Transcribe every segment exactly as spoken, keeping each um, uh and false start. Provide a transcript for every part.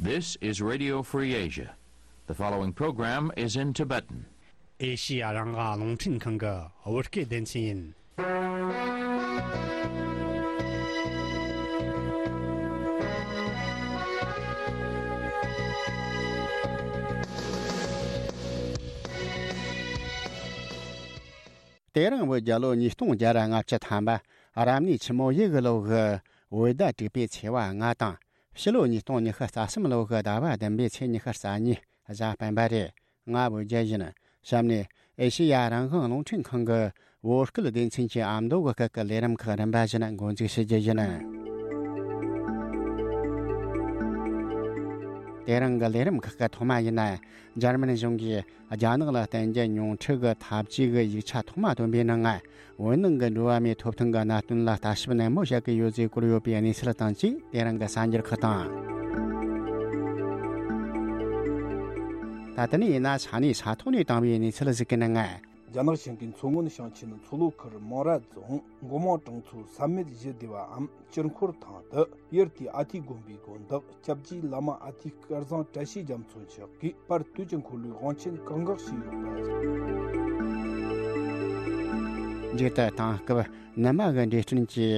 This is Radio Free Asia. The following program is in Tibetan. ཨེ་ཤི་ཡ་རང་དབང་རླུང་འཕྲིན་ཁང་གི་བོད་སྐད་སྡེ་ཚན་ཡིན། དེ་རིང་བོད་རྒྱལ་ལོ་ཉིས་སྟོང་བརྒྱ་ར་ལྔ་བཅུ་ཐམ་པ། རབ་གནས་ཆུ་མོ་ཡོས་གི་ལོ་གི་བོད་ཟླ་དྲུག་པའི་ཚེས་པ་ལྔ་དང་། ཕྱི་ལོ་ཉིས་སྟོང་ཉི་ཤུ་རྩ་གསུམ་ལོ་གི་ཟླ་བ་བདུན་པའི་ཚེས་ཉི་ཤུ་རྩ་གཉིས་གཟའ་སྤེན་པ་རེད། ང་བོད་རྒྱལ་ཡིན། གཤམ་ནས་ཨེ་ཤེ་ཡ་རང་དབང་རླུང་འཕྲིན་ཁང་གི་བོད་སྐད་སྡེ་ཚན་གྱི་ཨ་མདོ་གི་སྐད་ཀྱི་ལས་རིམ་ཁག་རིམ་པ་བཞིན་འགོ་འཛུགས་ཞུ་རྒྱུ་ཡིན། དེ་རིང་གི་ལས་རིམ་ཁག་གི་ཐོག་མ་ཡིན་ན། འཇར་མན་གཞུང་གིས་རྒྱ་ནག་ལ་བརྟེན་རྒྱུ་ཉུང་འཕྲི་གི་འཐབ་ཇུས་ཀྱི་ཡིག་ཆ་ཐོག་མ་བཏོན་པའི་ནང་། བོད་ནང་གི་འགྲོ་བ་མིའི་ཐོབ་ཐང་གི་གནད་དོན་ལ་ལྟ་ཞིབ་ནན་མོ་བྱེད་ཀྱི་ཡོད་ཅེས་བཀོད་ཡོད་པའི་གནས་ཚུལ་དང་བཅས། དེ་རིང་གི་གསར་འགྱུར་ཁག་དང་། ད་ལྟ་ནས་ཡིན་ན་ས་གནས་ས་ཐོག་ནས་བཏང་བའི་གནས་ཚུལ་ཞིག་གི་ནང་། རྒྱ་ནག་ཞིང་ཀེ་མཚོ་སྔོན་ཞིང་ཆེན་མཚོ་ལྷོ་ཁུལ་མོང་ར་རྫོང་མགོ་མང་གྲོང་ཚོའི་བསམ་མེད་བཞི་སྡེ་བའམ་སྤྱིར་འཁོར་ཐང་དུ། དབྱར་དུས་ཨ་ཐུའི་དགོན་པའི་དགོན་བདག་སྐྱབས་རྗེ་བླ་མ་ཨ་ཐུའི་སྐལ་བཟང་བཀྲ་ཤིས་རྒྱ་མཚོ་མཆོག་གིས་པར་དུས་ཀྱི་འཁོར་ལོའི་དབང་ཆེན་བཀའ་འགག་བྱས་ཡོད་པ། མཇུག་ཏུ་དེང་སྐབས་ནུ་མ་གི་འབྲས་སྐྲན་གྱི་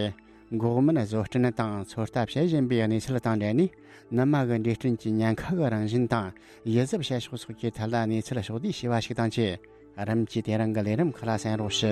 འགོག་སྨན་བཟོ་སྐྲུན་དང་ཚོད་ལྟ་བྱེད་བཞིན་པའི་གནས་ཚུལ་དང་འབྲེལ་ནས། ནུ་མ་གི་འབྲས་སྐྲན་གྱི་ཉེན་ཁ་གི་རང་བཞིན་དང་། ཡིད་གཟབ་བྱེད་ཕྱོགས་སོགས་ཀྱི་ཐད་ལ་གནས་ཚུལ་ཕྱོགས་བསྡུས་བྱས་པ་ཞིག་དང་བཅས། རིམ་གྱིས་དེ་རིང་གི་ལས་རིམ་ཁག་ལ་གསན་རོགས་ཞུ།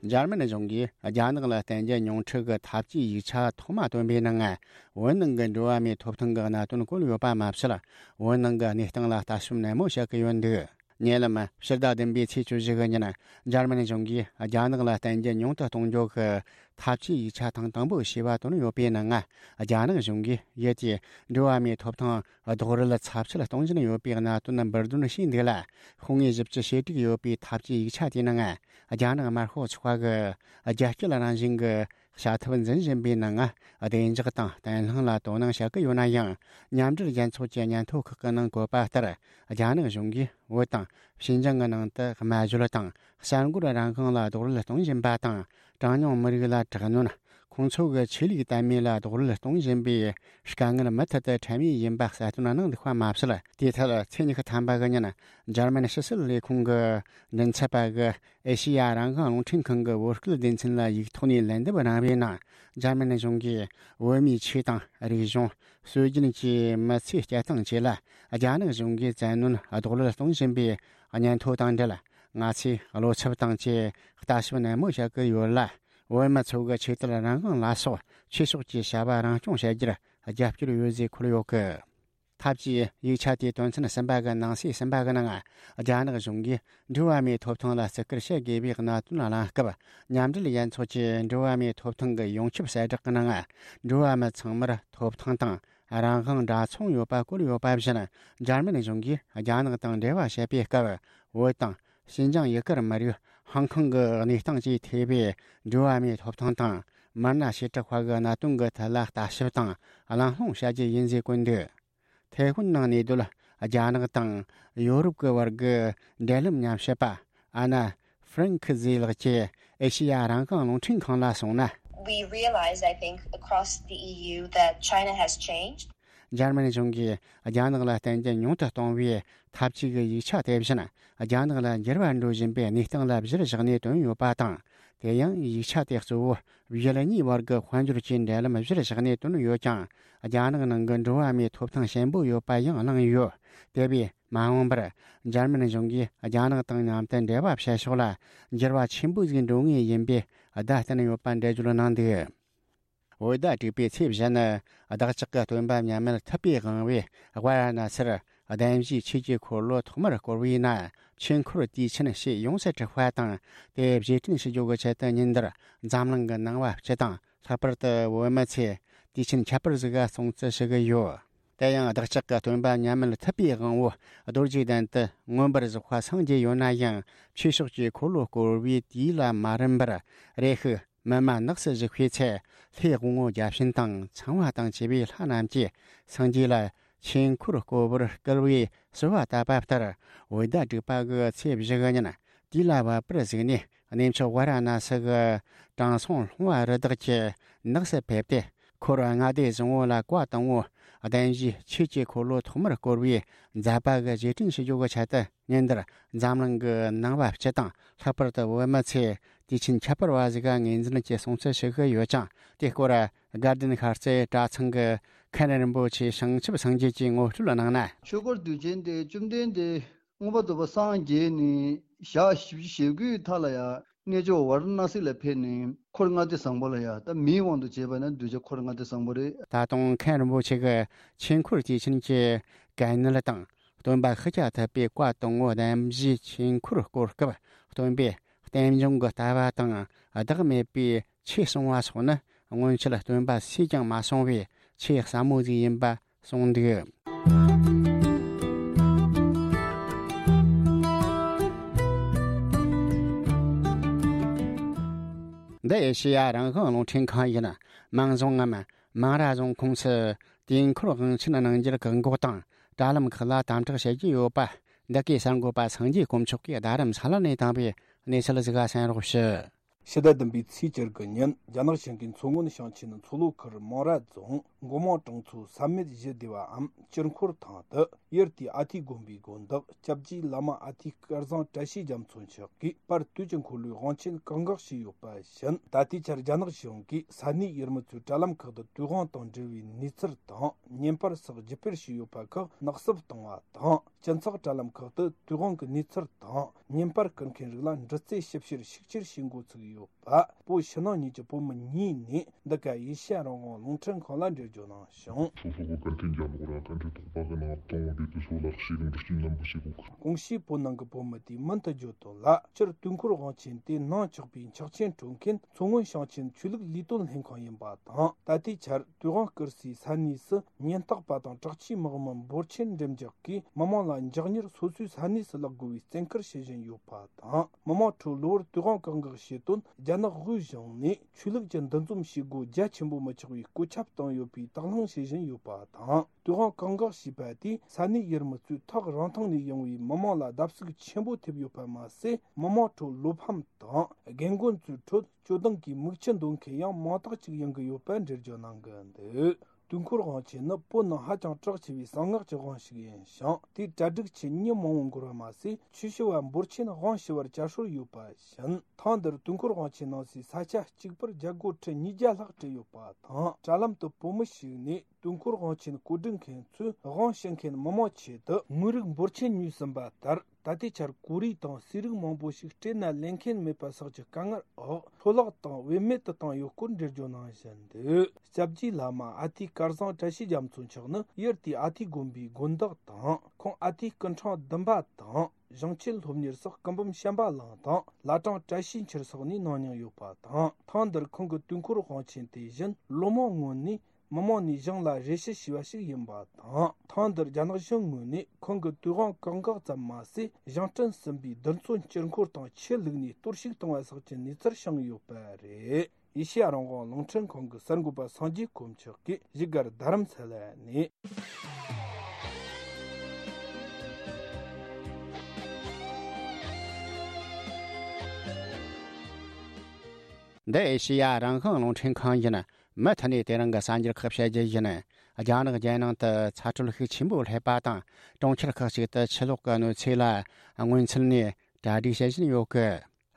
འཇར་མན་གཞུང་གིས་རྒྱ་ནག་ལ་བརྟེན་རྒྱུ་ཉུང་འཕྲི་གི་འཐབ་ཇུས་ཡིག་ཆ་ཐོག་མ་བཏོན་པའི་ནང་། བོད་ནང་གི་འགྲོ་བ་མིའི་ཐོབ་ཐང་གི་གནད་དོན་བཀོད་ཡོད་པ་མ་ཟད། བོད་ནང་གི་གནས་སྟངས་ལ་ལྟ་ཞིབ་ནན་མོ་བྱེད་ཀྱི་ཡོད་འདུག་ཉེ་ལམ་ཕྱི་ཟླ་བདུན་པའི་ཚེས་བཅུ་བཞི་གི་ཉིན། འཇར་མན་གཞུང་གིས་རྒྱ་ནག་ལ་བརྟེན་རྒྱུ་ཉུང་དུ་གཏོང་རྒྱུ་གི་འཐབ་ཇུས་ཡིག་ཆ་ཐེངས་དང་པོ་ཞེས་པ་བཏོན་ཡོད་པའི་ནང་། རྒྱ་ནག་གཞུང་གིས་ཡུལ་དེའི་འགྲོ་བ་མིའི་ཐོབ་ཐང་རྡོག་རོལ་ཚབས་ཆེར་གཏོང་བཞིན་ཡོད་པའི་གནད་དོན་འབུར་འདོན་བྱས་འདུག་ལ། ཤོག་ངོས་བཞི་བཅུ་ཞེ་དྲུག་ཡོད་པའི་འཐབ་ཇུས་ཡིག་ཆ་དེའི་ནང་། རྒྱ་ནག་དམར་ཤོག་ཚོགས་པ་གི་རྒྱ་སྐྱེད་རང་བཞིན་གྱི་བྱ་ཐབས་འཛིན་བཞིན་པའི་ནང་། བདེ་འཇགས་དང་བརྟན་ལྷིང་ལ་དོ་སྣང་བྱ་གི་ཡོད་ན་ཡང་། མཉམ་འབྲེལ་རྒྱལ་ཚོགས་ཀྱི་སྙན་ཐོ་ཁག་གི་ནང་བཀོད་པ་ལྟར། རྒྱ་ནག་གཞུང་གིས་བོད་དང་ཤིན་ཅང་གི་ནང་དུ་སྨྲ་བརྗོད་དང་གསར་འགོད་རང་དབང་ལ་རྡོག་རོལ་གཏོང་བཞིན་པ་དང་། གྲངས་ཉུང་མི་རིགས་ལ་དྲག་གནོན། ཁོང་ཚོ་གི་ཆོས་ལུགས་དད་མོས་ལ་རྡོག་རོལ་གཏོང་བཞིན་པའི་དཀའ་ངལ་མུ་མཐུད་དུ་འཕྲད་མུས་ཡིན་པ་གསལ་སྟོན་གནང་འདུག་པ་མ་ཟད། དེའི་ཐད་ཚེས་ཉི་ཤུ་ཐམ་པ་གི་ཉིན། འཇར་མན་ཕྱི་སྲིད་ལས་ཁུངས་ཀྱི་མགྲིན་ཚབ་པ་གིས་ཨེ་ཤེ་ཡ་རང་དབང་རླུང་འཕྲིན་ཁང་གི་བོད་སྐད་སྡེ་ཚན་ལ་ཡིག་ཐོག་ནས་ལན་འདེབས་གནང་བའི་ནང་། འཇར་མན་གཞུང་གིས་བོད་མིའི་ཆོས་དང་རིག་གཞུང་། སྲོལ་རྒྱུན་གྱི་མི་ཚེ་སྐྱེལ་སྟངས་བཅས་ལ་རྒྱ་ནག་གཞུང་གིས་བཙན་གནོན་རྡོག་རོལ་གཏོང་བཞིན་པའི་སྙན་ཐོ་དང་འབྲེལ། ང་ཚོས་བློ་འཚབ་དང་བཅས་ལྟ་ཞིབ་ནན་མོ་བྱ་གི་ཡོད་ལ། བོད་མི་ཚོ་གི་ཆོས་དད་རང་དབང་ལ་སོགས་ཆོས་ཕྱོགས་ཀྱི་བྱ་བ་རང་སྐྱོང་བྱ་རྒྱུར་རྒྱབ་སྐྱོར་ཡོད་ཅེས་འཁོད་ཡོད་གི། འཐབ་ཇུས་ཡིག་ཆ་དེའི་དོན་ཚན་གསུམ་པ་གི་ནང་གསེས་གསུམ་པ་གི་ནང་། རྒྱ་ནག་གཞུང་གིས་འགྲོ་བ་མིའི་ཐོབ་ཐང་ལ་བརྩི་བཀུར་བྱེད་དགོས་པའི་གནད་དོན་གླེང་སྐབས། མཉམ་འབྲེལ་རྒྱལ་ཚོགས་ཀྱི་འགྲོ་བ་མིའི་ཐོབ་ཐང་གི་ཡོངས་ཁྱབ་གསལ་བསྒྲགས་ཀྱི་ནང་། འགྲོ་བ་མི་ཚང་མར་ཐོབ་ཐང་དང་རང་དབང་འདྲ་མཚུངས་ཡོད་པ་བཀོད་ཡོད་པ་བཞིན། འཇར་མན་གཞུང་གིས་རྒྱ་ནག་དང་འབྲེལ་བ་བྱེད་པའི་སྐབས། བོད་དང་ཤིན་ཅང་ཡུ་གུར་མི་རིགས་ཧང་ཁང་གི་གནས་སྟངས་ཀྱིས་ཐེ་བའི་འགྲོ་བ་མིའི་ཐོབ་ཐང་དང་། མི་སྣ་བྱེ་བྲག་པ་གི་གནད་དོན་གྱི་ཐད་ལ་ལྟ་ཞིབ་དང་གླེང་སློང་བྱ་རྒྱུ་ཡིན་ཞེས་བཀོད་འདུག་ཐེ་ཝན་ནང་གནས་སྡོད་རྒྱ་ནག་དང་ཡོ་རོབ་ཀྱི་བར་གྱི་འབྲེལ་ལམ་ཉམས་ཞིབ་པ་ཨ་ན་ཧྥྲན་ཁི་ཛི་ལགས་ཀྱིས་ཨེ་ཤེ་ཡ་རང་དབང་རླུང་འཕྲིན་ཁང་ལ་གསུངས་ན། We realize, I think, across the E U that China has changed. འཇར་མན་གཞུང་གིས་རྒྱ་ནག་ལ་བརྟེན་རྒྱུ་ཉུང་དུ་གཏོང་བའི་འཐབ་ཇུས་ཀྱི་ཡིག་ཆ་དེ་བཞིན། རྒྱ་ནག་ལ་འགྱུར་བ་འགྲོ་བཞིན་པའི་གནས་སྟངས་ལ་གཞིར་བཞག་ནས་བཏོན་ཡོད་པ་དང་། དེ་ཡང་ཡིག་ཆ་དེ་གཙོ་བོ་ཡུལ་གཉིས་བར་གྱི་དཔལ་འབྱོར་གྱི་འབྲེལ་ལམ་གཞིར་བཞག་ནས་བཏོན་ཡོད་ཀྱང་། རྒྱ་ནག་ནང་གི་འགྲོ་བ་མིའི་ཐོབ་ཐང་ཞན་པོ་ཡོད་པ་ཡང་གླེང་ཡོད། དེ་བས་མ་འོངས་པར་འཇར་མན་གཞུང་གིས་རྒྱ་ནག་དང་མཉམ་དུ་འབྲེལ་བ་བྱེད་ཕྱོགས་ལ་འགྱུར་བ་ཆེན་པོ་ཞིག་འགྲོ་ངེས་ཡིན་པའི་བརྡ་བསྟན་ཡོད་པ་འགྲེལ་བརྗོད་གནང་འདུག་བོད་ཟླ་དྲུག་པའི་ཚེས་བཞི་ནི། བདག་ཅག་གི་སྟོན་པ་མཉམ་མེད་ཐུབ་པའི་དབང་པོས་ཝཱ་ར་ཎ་སིར་གདན་བཞིའི་ཆོས་ཀྱི་འཁོར་ལོ་ཐོག་མར་བསྐོར་བའི་ནང་། ཆོས་འཁོར་དུས་ཆེན་ཞེས་ཡོངས་སུ་གྲགས་པ་དང་། དེ་བརྗེད་དྲན་ཞུ་རྒྱུ་གི་ཆེད་དུ་ཉིན་འདིར་འཛམ་གླིང་གི་ནང་པ་སྤྱི་དང་། ལྷག་པར་དུ་བོད་མི་ཚོས་དུས་ཆེན་ཁྱད་པར་ཞིག་ག་སྲུང་བརྩི་ཞུ་གི་ཡོད། དེ་ཡང་བདག་ཅག་གི་སྟོན་པ་མཉམ་མེད་ཐུབ་པའི་དབང་པོ་རྡོ་རྗེ་གདན་དུ་མངོན་པར་རྫོགས་པ་སངས་རྒྱས་ཡོད་ན་ཡང་། ཆོས་ཕྱོགས་ཀྱི་འཁོར་ལོ་བསྐོར་བའི་དུས་ལ་མ་རན་པར། རེ་ཞིག་མི་མ་ནགས་སུ་བཞུགས་པའི་ཚེ། ལྷའི་དབང་པོ་བརྒྱ་བྱིན་དང་ཚངས་པ་དང་བཅས་པའི་ལྷ་རྣམས་ཀྱིས་སངས་རྒྱས་ལ་ཆོས་འཁོར་བསྐོར་བར་སྐུལ་བའི་གསོལ་བ་བཏབ་པ་ལྟར། བོད་ཟླ་དྲུག་པ་གི་ཚེས་བཞི་གི་ཉིན་དུས་ལ་བབ་པར་གཟིགས་ནས། གནས་མཆོག་ཝཱ་ར་ཎ་སི་གི་དྲང་སྲོང་ལྷུང་བ་རི་དྭགས་ཀྱི་ནགས་སུ་ཕེབས་ཏེ། འཁོར་ལྔ་སྡེ་བཟང་བོ་ལ་བཀའ་དང་བོ། གདན་བཞིའི་ཆོས་ཀྱི་འཁོར་ལོ་ཐོག་མར་བསྐོར་བའི་མཛད་པ་གི་རྗེས་དྲན་ཞུ་རྒྱུ་གི་ཆེད་དུ། ཉིན་འདིར་འཛམ་གླིང་གི་ནང་པ་སྤྱི་དང་། ལྷག་པར་དུ་བོད་མི་ཚོས་དུས་ཆེན་ཁྱད་པར་བ་ཞིག་ངོས་འཛིན་གྱིས་སྲུང་བརྩི་ཞུ་གི་ཡོད་ཅིང་། དེའི་སྐོར་དགའ་ལྡན་ཤར་རྩེ་གྲྭ་ཚང་གི་མཁན་རིན་པོ་ཆེ་བྱང་ཆུབ་སངས་རྒྱས་ཀྱིས་ངོ་སྤྲོད་གནང་ན། ཆོས་འཁོར་དུས་ཆེན་དེ་བཅོམ་ལྡན་འདས་མངོན་པར་རྫོགས་པར་སངས་རྒྱས་ནས་ཞག་བཞི་བཅུ་ཞེ་དགུའི་མཐའ་ལ་ཡང་གནས་མཆོག་ཝཱ་ར་ཎ་སི་ལ་ཕེབས་ནས། འཁོར་ལྔ་སྡེ་བཟང་པོ་ལ་ཡང་ད་མིའི་དབང་དུ་བྱས་པ་ན་གདུལ་བྱ་འཁོར་ལྔ་སྡེ་བཟང་པོ་རེད། ད་དུང་མཁན་རིན་པོ་ཆེ་གིས་ཆོས་འཁོར་དུས་ཆེན་གྱི་གལ་གནད་དང་། སྟོན་པ་ཤཱཀྱ་ཐུབ་པའི་བཀའ་དང་བོ་གདན་བཞིའི་ཆོས་འཁོར་བསྐོར་སྐབས། སྟོན་པས་རྟེན་འབྱུང་གི་ལྟ་བ་དང་བདག་མེད་པའི་ཆོས་གསུང་བ་སོགས་ནི། སྔོན་ཆད་སྟོན་པ་སུས་ཀྱང་མ་གསུངས་པའི་ཆོས་ཟབ་མོ་ཞིག་ཡིན་པ་གསུངས་འདུག། འདི་ཨེ་ཤེ་ཡ་རང་དབང་རླུང་འཕྲིན་ཁང་ཡིན། མང་རྫོང་ངམ་མང་ར་རྫོང་ཁོངས་སུ་དུས་འཁོར་དབང་ཆེན་གནང་རྒྱུར་བཀག་འགོག་དང་། དྲ་ལམ་ཁག་ལ་དམ་དྲག་བྱེད་ཀྱི་ཡོད་པ། འདི་གའི་གསར་འགོད་པ་སངས་རྒྱས་དཀོན་མཆོག་གིས་རྡ་རམ་ས་ལ་ནས་བཏང་བའི་གནས་ཚུལ་ཞིག་གསན་རོགས་ཞུ། ཕྱི་ཟླ་བདུན་པའི་ཚེས་བཅུ་དགུ་ཉིན། རྒྱ་ནག་བྱང་ཁུལ་མཚོ་སྔོན་ཞིང་ཆེན་མཚོ་ལྷོ་ཁུལ་མང་ར་རྫོང་མགོ་མང་གྲོང་ཚོའི་ས་མེད་བཞི་སྡེ་བའམ་སྤྱིར་འཁོར་ཐང་དུ། ཡུལ་དེའི་ཨ་ཐི་དགོན་པའི་དགོན་བདག་སྐྱབས་རྗེ་བླ་མ་ཨ་ཐི་སྐལ་བཟང་བཀྲ་ཤིས་རྒྱ་མཚོ་མཆོག་གིས་པར་དུས་ཀྱི་འཁོར་ལོའི་དབང་ཆེན་བཀག་འགོག་བྱས་ཡོད་པ་བཞིན། ད་ལྟའི་ཆར་རྒྱ་ནག་གཞུང་གིས་ས་གནས་ཡུལ་མི་ཚོའི་དྲ་ལམ་ཁག་ཏུ་དུས་དབང་དང་འབྲེལ་བའི་གནས་ཚུལ་དང་བརྙན་པར་སོགས་བརྒྱུད་སྤེལ་བྱས་ཡོད་པ་ཁག་ནག་བསུབ་བཏང་བ་དང་། སྤྱི་ཚོགས་དྲ་ལམ་ཁག་ཏུ་དུས་དབང་གི་གནས་ཚུལ་དང་བརྙན་པར་བསྐུར་མཁན་རིགས་ལ་འདྲི་རྩད་ཞིབ་བཤེར་ཤུགས་ཆེར་བྱེད་འགོ་ཚུགས་ཡོད་པ། བོད་ཕྱི་ནང་གཉིས་ཀྱི་བོད་མི་གཉིས་ནས་འདི་ག་ཨེ་ཤེ་ཡ་རང་དབང་རླུང་འཕྲིན་ཁང་ལ་འགྲེལ་བརྗོད་གནང་བྱུང་། སོ་སོ་གི་གར་ཐེན་རྒྱ་ལོག་ར་ག་འདྲ་དོགས་པ་གི་ནང་དང་འདྲེ་དུ་སོ་ལ་ཤེས་གི་འདྲི་རྩད་ནན་པོ་བྱེད་དགོས་གི། གོང་ཞུས་བོད་ནང་གི་བོད་མི་དེས་མུ་མཐུད་བརྗོད་དོན་ལ། སྤྱིར་དུས་འཁོར་དབང་ཆེན་དེ་ནང་ཆགས་པའི་འཁྱགས་ཆེན་དཀྲོལ་མཁན་མཚོ་སྔོན་ཞིང་ཆེན་ཆོས་ལུགས་ལས་དོན་ལྷན་ཁང་ཡིན་པ་དང་། ད་ལྟའི་ཆར་དུས་དབང་བསྐུར་སའི་ས་གནས་སུ་ཉེན་རྟོག་པ་དང་དྲག་ཆས་དམག་མི་འབོར་ཆེན་འགྲེམས་འཇོག་གིས། མི་མང་ལ་མགྱོགས་མྱུར་སོ་སོའི་ས་གནས་སུ་ལོག་དགོས་པའི་བཙན་བཀའ་བྱེད་བཞིན་ཡོད་པ་དང་། མི་མང་ཁྲོད་གློ་བུར་དུས་དབང་བཀག་འགོག་བྱེད་དོན། རྒྱ་ནག་དབུས་གཞུང་ནས་ཆོས་ལུགས་ཀྱི་འདུ་འཛོམས་བྱེད་སྒོ་རྒྱ་ཆེན་པོ་མི་ཆགས་པའི་བཀོད་ཁྱབ་བཏང་ཡོད་པའི་དོགས་སློང་བྱེད་བཞིན་ཡོད་པ་དང་། དུས་དབང་བཀག་འགོག་བྱས་པ་དེས་ས་གནས་ཡུལ་མི་ཚོས་ཐག་རིང་ཐུང་ནས་ཡོང་བའི་མི་མང་ལ་བརྡབ་གསིག་ཆེན་པོ་ཐེབས་ཡོད་པ་མ་ཟད། མི་མང་ཁྲོད་བློ་ཕམ་དང་། རྒན་རྒོན་ཚོའི་ཁྲོད་སྤྱོད་གདུང་གིས་མིག་ཆུ་འདོན་མཁན་ཡང་མང་དག་ཅིག་ཡོང་གི་ཡོད་པ་འགྲེལ་བརྗོད་གནང་གི་འདུག། དུས་འཁོར་དབང་ཆེན་ནི་བོད་ནང་ཧ་ཅང་གྲགས་ཆེ་བའི་གསང་སྔགས་ཀྱི་དབང་ཞིག་ཡིན་ཞིང་། དེའི་གྲ་སྒྲིག་ཆེད་མི་མང་བོ་འགོར་བ་མ་ཟད། ཆོས་ཞུ་བ་འབོར་ཆེན་དབང་ཞུ་བར་བཅར་སྲོལ་ཡོད་པ་བཞིན། ཐེངས་འདིར་དུས་འཁོར་དབང་ཆེན་གནང་སའི་ས་ཆ་གཅིག་པུར་རྒྱ་སྒོར་ཁྲི་ཉིས་བརྒྱ་ལྷག་སྤྲད་ཡོད་པ་དང་། དྲ་ལམ་དུ་བོད་མི་ཞིག་ནས། དུས་འཁོར་དབང་ཆེན་གོ་སྒྲིག་མཁན་ཚོས་དབང་ཞུ་མཁན་མི་མང་ཆེད་དུ་དངོས་རིགས་འབོར་ཆེན་ཉོས་ཟིན་པ་ལྟར། ད་ལྟའི་ཆར་གོ་རེ་དང་ཟས་རིགས་མང་པོ་ཞིག་སྤྲད་ན་ལེན་མཁན་མེད་པ་སོགས་ཀྱི་དཀའ་ངལ་འོག་འཕྲོ་བརླག་དང་བེད་མེད་དུ་བཏང་ཡོད་སྐོར་འགྲེལ་བརྗོད་གནང་བཞིན་འདུག། སྐྱབས་རྗེ་བླ་མ་ཨ་ཐི་སྐལ་བཟང་བཀྲ་ཤིས་རྒྱ་མཚོ་མཆོག་ནི་ཡུལ་དེའི་ཨ་ཐི་དགོན་པའི་དགོན་བདག་དང་། ཁོང་ཨ་ཐི་སྐུ་ཕྲེང་བདུན་པ་དང་། གཞུང་ཆེན་སློབ་གཉེར་སོགས་སྐུ་འབུམ་བྱམས་པ་གླིང་དང་། བླ་བྲང་བཀྲ་ཤིས་འཁྱིལ་སོགས་ནས་གནང་མྱོང་ཡོད་པ་དང་། ཐེངས་འདིར་ཁོང་གི་དུས་འཁོར་དབང་ཆེན་དེ་བཞིན་ལོ་མང་སྔོན་ནས་མི་མང་ནས་གཞུང་ལ་རེ་ཞུ་བྱས་པ་ཞིག་ཡིན་པ་དང་། ཐེངས་འདིར་རྒྱ་ནག་གཞུང་ངོས་ནས་ཁོང་གི་དུས་དབང་བཀག་འགོག་ཙམ་མ་ཟད། གཞུང་འབྲེལ་ཟིན་པའི་རྡུལ་ཚོན་དཀྱིལ་འཁོར་དང་ཆུ་བླུགས་ནས་གཏོར་བཤིག་བཏང་བ་སོགས་ཀྱི་གནས་ཚུལ་བྱུང་ཡོད་པ་རེད། ཨེ་ཤེ་ཡ་རང་དབང་རླུང་འཕྲིན་ཁང་གི་གསར་འགོད་པ་སངས་རྒྱས་དཀོན་མཆོག་གིས་བཞུགས་སྒར་རྡ་རམ་ས་ལ་ནས། འདི་ཨེ་ཤེ་ཡ་རང་དབང་རླུང་འཕྲིན་ཁང་ཡིན། མུ་མཐུད་ནས་དེ་རིང་གི་གསར་འགྱུར་ཁག་བཤད་རྒྱུ་ཡིན། རྒྱ་ནག་རྒྱལ་ནང་དུ་ཚ་དྲོད་ཤུགས་ཆེན་པོ་སླེབས་པ་དང་། གྲོང་ཁྱེར་ཁག་ཅིག་ཏུ་ཆུ་ལོག་གི་གནོད་འཚེ་ལ་སྔོན་ཚུད་ནས་གྲ་སྒྲིག་བྱེད་བཞིན་ཡོད་གི།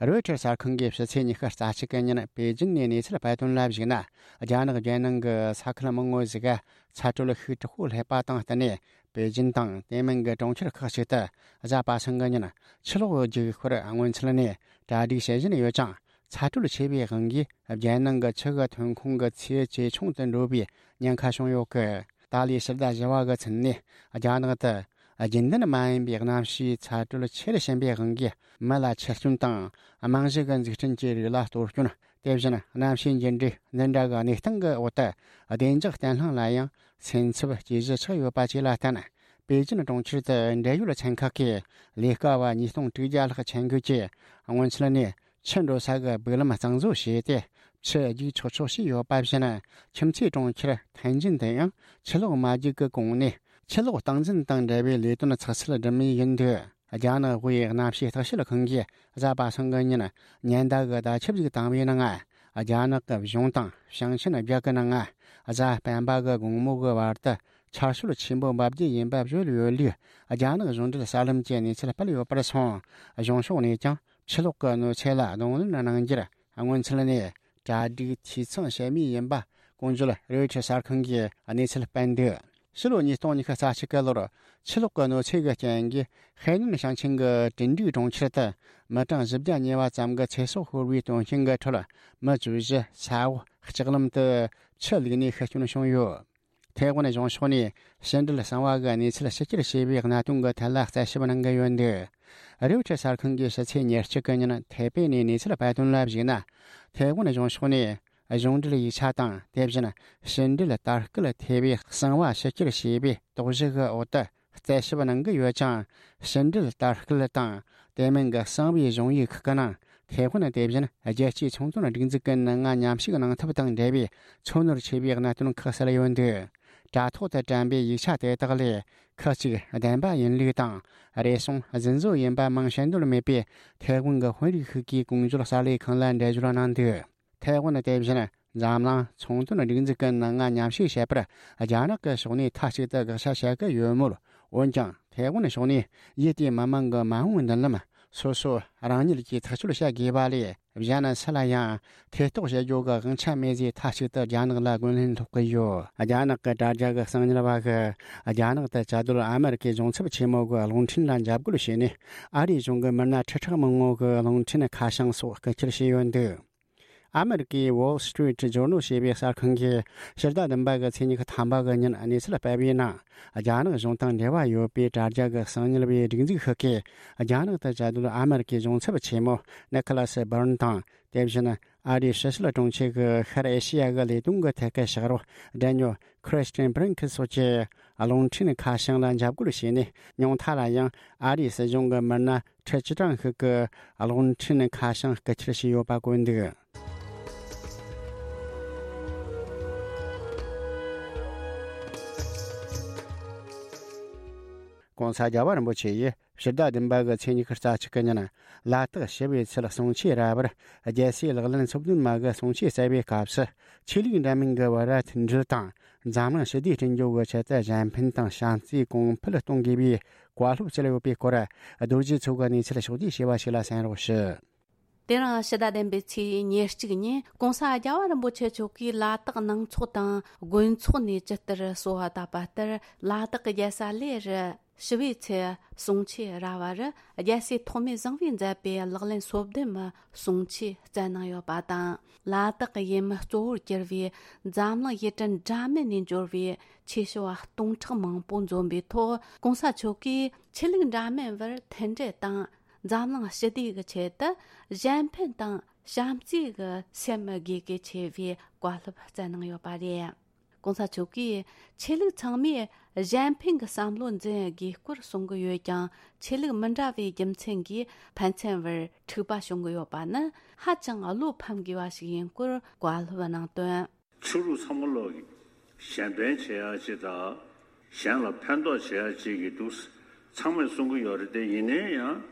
རོའི་ཊར་གསར་ཁང་གིས་ཕྱི་ཚེས་ཉི་ཤུ་རྩ་གཅིག་གི་ཉིན་པེ་ཅིན་ནས་གནས་ཚུལ་སྤེལ་དོན་ལ་གཞིགས་ན། རྒྱ་ནག་རྒྱལ་ནང་གི་ས་ཁུལ་མང་བོ་ཞིག་ག་ཚ་དྲོད་ཤུགས་དྲག་པོ་སླེབས་པ་དང་བསྟུན་ནས། པེ་ཅིན་དང་དེ་མིན་གྱི་གྲོང་ཁྱེར་ཁག་ཅིག་ཏུ་གཟའ་པ་སངས་ཀྱི་ཉིན་ཆུ་ལོག་རྒྱུག་པར་སྔོན་ཚུད་ནས་གྲ་སྒྲིག་བྱེད་བཞིན་ཡོད་ཅིང་། ཚ་དྲོད་ཆེ་བའི་དབང་གིས་རྒྱལ་ནང་གི་ཆུ་གི་ཐོན་ཁུངས་ཀྱི་ཚད་ཇེ་ཆུང་དུ་འགྲོ་བའི་ཉེན་ཁ་བྱུང་ཡོད་གི། ཏཱ་ལའི་ཕྱི་ཟླ་བཞི་བ་གི་ཚུན་ནས་རྒྱ་ནག་ཏུ་རྒྱུན་ལྡན་མ་ཡིན་པའི་གནམ་གཤིས་ཚ་དྲོད་ཆེ་རུ་ཕྱིན་པའི་དབང་གིས། མི་ལ་འཆི་སྐྱོན་དང་རྨང་གཞི་གི་འཛུགས་སྐྲུན་གྱི་རིགས་ལ་གཏོར་སྐྱོན། དེ་བཞིན་གནམ་གཤིས་འགྱུར་འགྲོས་འདི་འདྲ་གི་གནས་སྟངས་ཀྱི་འོག་ཏུ་བདེ་འཇགས་བརྟན་ལྷིང་ལ་ཡང་སེམས་འཚབ་སྐྱེ་གཞི་ཆགས་ཡོད་པ་བཅས་ལ་བརྟེན། པེ་ཅིན་གྲོང་ཁྱེར་དུ་འབྲེལ་ཡོད་ཚན་ཁག་གིས་ལས་ཀ་བ་ཉིས་སྟོང་དྲུག་བརྒྱ་ལྷག་ཆེད་འགོད་ཀྱིས་སྔོན་ཚུད་ནས་ཆུ་འགྲོ་ས་གི་སྦུག་ལམ་གཙང་བཟོ་བྱས་ཏེ། ཆུ་རྒྱུག་ཆོག་ཆོག་བྱས་ཡོད་པ་བཞིན། ཁྱིམ་མཚེས་གྲོང་ཁྱེར་ཐན་ཅིན་དུ་ཡང་ཆུ་ལོག་མ་རྒྱུག་གི་གོང་ནས་ཆུ་ལོག་སྟངས་འཛིན་དང་འབྲེལ་བའི་ལས་དོན་ཚགས་ཚུད་སྒྲུབ་མུས་ཡིན་འདུག། རྒྱ་ནག་དབུས་གནམ་གཤིས་བརྟག་དཔྱད་ཁང་གིས་གཟའ་པ་སངས་ཀྱི་ཉིན་ཉེན་བརྡ་གི་བརྡ་ཁྱབ་ཞིག་བཏང་བའི་ནང་ རྒྱ་ནག་གི་གཞུང་དང་ཞིང་ཆེན་བརྒྱད་ཀྱི་ནང་གཟའ་སྤེན་པ་གི་དགོང་མོ་གི་བར་དུ་ཆར་ཞོད་ཆེན་པོ་འབབ་རྒྱུ་ཡིན་པ་བརྗོད་ཡོད་ལུགས། རྒྱ་ནག་གཞུང་འབྲེལ་གསར་ལམ་གྱི་གནས་ཚུལ་སྤེལ་ཡོད་པར་སོང་། གཞུང་ཕྱོགས་ནས་ཀྱང་ཆུ་ལོག་གི་གནོད་འཚེ་ལ་གདོང་ལེན་གནང་རྒྱུར་སྔོན་ཚུད་ནས་གྲ་སྒྲིག་འཐུས་ཚང་བྱེད་མུས་ཡིན་པ། ཀོང་ཇོ་རོའི་ཊར་གསར་ཁང་གིས་གནས་ཚུལ་སྤེལ་འདུག་ཕྱི་ལོ་ཉིས་སྟོང་ཉི་ཤུ་རྩ་གཅིག་གི་ལོར་ཆུ་ལོག་གི་གནོད་འཚེ་གི་རྐྱེན་གྱིས་ཧའེ་ནན་ཞིང་ཆེན་གྱི་ཀྲིན་ཀྲིག་གྲོང་ཁྱེར་དུ་མི་གྲངས་བཞི་བརྒྱ་ཉེ་བ་ཙམ་གྱི་ཚེ་སྲོག་ཤོར་བའི་དོན་རྐྱེན་གྱི་ཁྲོད། མི་བཅུ་བཞི་ས་འོག་ལྕགས་ལམ་དུ་ཆུ་བླུགས་ནས་ཤི་སྐྱོན་བྱུང་ཡོད། ཐའེ་ཝན་གཞུང་ཕྱོགས་ནས་ཕྱི་འབྲེལ་གསང་བ་གི་གནས་ཚུལ་ཕྱི་བསྒྱུར་བྱས་པའི་གནད་དོན་གྱི་ཐད་ལ་རྩད་ཞིབ་གནང་གི་ཡོད་འདུག་རོའི་ཊར་གསར་ཁང་གིས་ཕྱི་ཚེས་ཉེར་གཅིག་གི་ཉིན་ཐའེ་པེ་ནས་གནས་ཚུལ་སྤེལ་དོན་ལ་གཞིགས་ན། ཐའེ་ཝན་གཞུང་ཕྱོགས་ནས་གཞུང་འབྲེལ་ཡིག་ཆ་དང་དེ་བཞིན་ཕྱི་འབྲེལ་ལྟ་སྐུལ་ཐེ་བའི་གསང་བ་ཕྱི་བསྒྱུར་བྱས་པའི་དོགས་གཞི་གི་འོག་ཏུ་རྩད་ཞིབ་གནང་གི་ཡོད་ཅིང་། ཕྱི་འབྲེལ་ལྟ་སྐུལ་དང་དེ་མིན་གྱི་གསང་བའི་གཞུང་ཡིག་ཁག་གི་ནང་ཐའེ་ཝན་དེ་བཞིན་རྒྱལ་སྤྱིའི་ཚོང་དོན་སྒྲིག་འཛུགས་ཀྱི་མི་སྣ་མཉམ་ཞུགས་གནང་ཐབས་དང་འབྲེལ་བའི་ཚོར་སྣང་ཆེ་བའི་གནད་དོན་ཁག་གསལ་ཡོད་འདུག་དྲ་ཐོག་ཏུ་བཀྲམ་པའི་ཡིག་ཆ་དེ་དག་ལས་ཁག་ཅིག་བདེན་པ་ཡིན་ལུགས་དང་། རེ་ཟུང་རྫུན་བཟོ་ཡིན་པ་མང་ཤེས་འདོད་མེད་པའི་ཐའེ་ཝན་གྱི་དཔོན་རིགས་ཤིག་གིས་ཀོང་ཇོ་གསར་ལས་ཁང་ལ་འགྲེལ་བརྗོད་གནང་འདུག་ཐའེ་ཝན་དེ་བཞིན་འཛམ་གླིང་ཚོང་དོན་སྒྲིག་འཛུགས་ཀྱི་མི་སྣ་མཉམ་ཞུགས་བྱེད་པར་རྒྱ་ནག་གི་ཕྱོགས་ནས་མཐའ་གཅིག་ཏུ་དགག་བྱ་བྱ་གི་ཡོད་མོད། འོན་ཀྱང་ཐའེ་ཝན་ཕྱོགས་ནས་ཡུལ་དེའི་མི་དམངས་ཀྱི་མ་འོངས་མདུན་ལམ་སོ་སོ་རང་ཉིད་ཀྱིས་ཐག་གཅོད་བྱ་དགོས་པ་ལས། གཞན་སུ་ལ་ཡང་ཐེ་གཏོགས་བྱེད་རྒྱུ་གི་དབང་ཆ་མེད་ཅེས་མཐའ་གཅིག་ཏུ་རྒྱ་ནག་ལ་རྒོལ་ལན་སློག་གི་ཡོད། རྒྱ་ནག་གི་དྲ་རྒྱ་གི་གསང་ཉུལ་བ་གིས་རྒྱ་ནག་ཏུ་བཅའ་སྡོད་ཨ་མེ་རི་ཀའི་གཞུང་ཚབ་ཆེན་མོ་གི་གློག་འཕྲིན་ལ་འཇབ་རྒོལ་བྱས་ནས། ཨ་རིའི་གཞུང་གི་མི་སྣ་ཁྲི་ཕྲག་མང་པོ་གི་གློག་འཕྲིན་ཁ་བྱང་སོགས་རྐུ་འཁྱེར་བྱས་ཡོད་འདུག་ཨ་མེ་རི་ཀའི་Wall Street Journal ཞེས་པའི་གསར་ཁང་གིས་ཕྱི་ཟླ་བདུན་པ་གི་ཚེས་ཉི་ཤུ་ཐམ་པ་གི་ཉིན་གནས་ཚུལ་སྤེལ་བའི་ནང་། རྒྱ་ནག་གཞུང་དང་འབྲེལ་བ་ཡོད་པའི་དྲ་རྒྱ་གི་གསང་ཉུལ་བའི་སྒྲིག་འཛུགས་ཤིག་གིས་རྒྱ་ནག་ཏུ་བཅའ་སྡོད་ཨ་མེ་རི་ཀའི་གཞུང་ཚབ་ཆེན་མོ་ནི་ཁོ་ལ་སི་སྦུརན་དང་། དེ་བཞིན་ཨ་རིའི་ཕྱི་སྲིད་དྲུང་ཆེ་གི་ཤར་ཨེ་ཤི་ཡ་གི་ལས་དོན་གྱི་ཐད་ཀྱི་ཕྱག་རོགས་བགྲེས་ཉོ་Christian Brink སོགས་ཀྱི་གློག་འཕྲིན་ཁ་བྱང་ལ་འཇབ་རྒོལ་བྱས་ནས། ཉུང་མཐའ་ལ་ཡང་ཨ་རིའི་སྲིད་གཞུང་གི་མི་སྣ་ཁྲི་བཅུ་གྲངས་ཤིག་གི་གློག་འཕྲིན་ཁ་བྱང་རྐུ་འཁྱེར་བྱས་ཡོད་པ་བཀོད་འདུག ྋགོང་ས་རྒྱལ་བ་རིན་པོ་ཆེ་ཡིས་ཕྱི་ཟླ་བདུན་པ་གི་ཚེས་ཉི་ཤུ་རྩ་གཅིག་གི་ཉིན། ལ་དྭགས་ཞི་བའི་ཚལ་གསུང་ཆོས་ར་བར་རྒྱལ་སྲས་ལག་ལེན་ཚོགས་བདུན་མ་གི་གསུང་ཆོས་སྩལ་བའི་སྐབས་སུ། ཆོས་ལུགས་འདྲ་མིན་གྱི་བར་མཐུན་སྒྲིལ་དང་། འཛམ་གླིང་ཞི་བདེ་བསྐྲུན་རྒྱུ་གི་ཆེད་དུ་གཞན་ཕན་དང་བྱམས་བརྩེ་གོང་འཕེལ་གཏོང་དགོས་པའི་བཀའ་སློབ་སྩལ་ཡོད་པའི་སྐོར། རྡོ་རྗེ་མཚོ་གི་གནས་ཚུལ་ཕྱོགས་བསྡུས་བྱས་པ་ཞིག་ལ་གསན་རོགས་ཞུ། དེ་རིང་ཕྱི་ཟླ་བདུན་པའི་ཚེས་ཉེར་གཅིག་ཉིན་ྋགོང་ས་རྒྱལ་བ་རིན་པོ་ཆེ་མཆོག་གིས་ལ་དྭགས་ནང་ཚོགས་དང་དགོན་ཚོགས་ནས་ཇི་ལྟར་གསོལ་བ་བཏབ་པ་ལྟར། ལ་དྭགས་ཀྱི་རྒྱལ་ས་གླེ་རུ་ཞི་བའི་ཚལ་གསུང་ཆོས་ར་བ་རུ་རྒྱལ་སྲས་ཐོགས་མེད་བཟང་པོས་མཛད་པའི་ལག་ལེན་སོ་བདུན་མའི་གསུང་ཆོས་སྩལ་གནང་ཡོད་པ་དང་། ལ་དྭགས་ཀྱི་ཡུལ་མི་གཙོ་བོར་གྱུར་བའི་འཛམ་གླིང་ཡུལ་གྲུ་འདྲ་མིན་ནས་འབྱོར་བའི་ཆོས་ཞུ་བ་སྟོང་ཕྲག་མང་པོ་འཛོམས་པའི་ཐོག ྋགོང་ས་མཆོག་གིས་ཆོས་ལུགས་འདྲ་མིན་བར་མཐུན་སྒྲིལ་དང་། འཛམ་གླིང་ཞི་བདེ་གི་ཆེད་དུ་གཞན་ཕན་དང་བྱམས་བརྩེ་གི་སེམས་དགོས་གལ་ཆེ་བའི་བཀའ་སློབ་སྩལ་གནང་ཡོད་པ་རེད། ྋགོང་ས་མཆོག་གིས་ཆོས་ལུགས་ཚང་མས་གཞན་ཕན་གྱི་བསམ་བློ་འཛིན་དགོས་སྐོར་གསུང་གི་ཡོད་ཀྱང་། ཆོས་ལུགས་མི་འདྲ་བའི་རྒྱུ་མཚན་གྱིས་ཕན་ཚུན་བར་འཁྲུག་པ་བྱུང་གི་ཡོད་པ་ནི་ཧ་ཅང་བློ་ཕམ་དགོས་པ་ཞིག་ཡིན་སྐོར་བཀའ་སློབ་གནང་དོན། ཆོས་ལུགས་ཚང་མ་ལོག་གི་གཞན་ཕན་བྱེད་ཡག་ཅིག་དང་། གཞན་ལ་ཕན་ཐོགས་བྱེད་ཡག་ཅིག་གི་འདུག་ཚང་མས་གསུང་གི་ཡོད་རེད་དེ། ཡིན་ནའི་ཡང་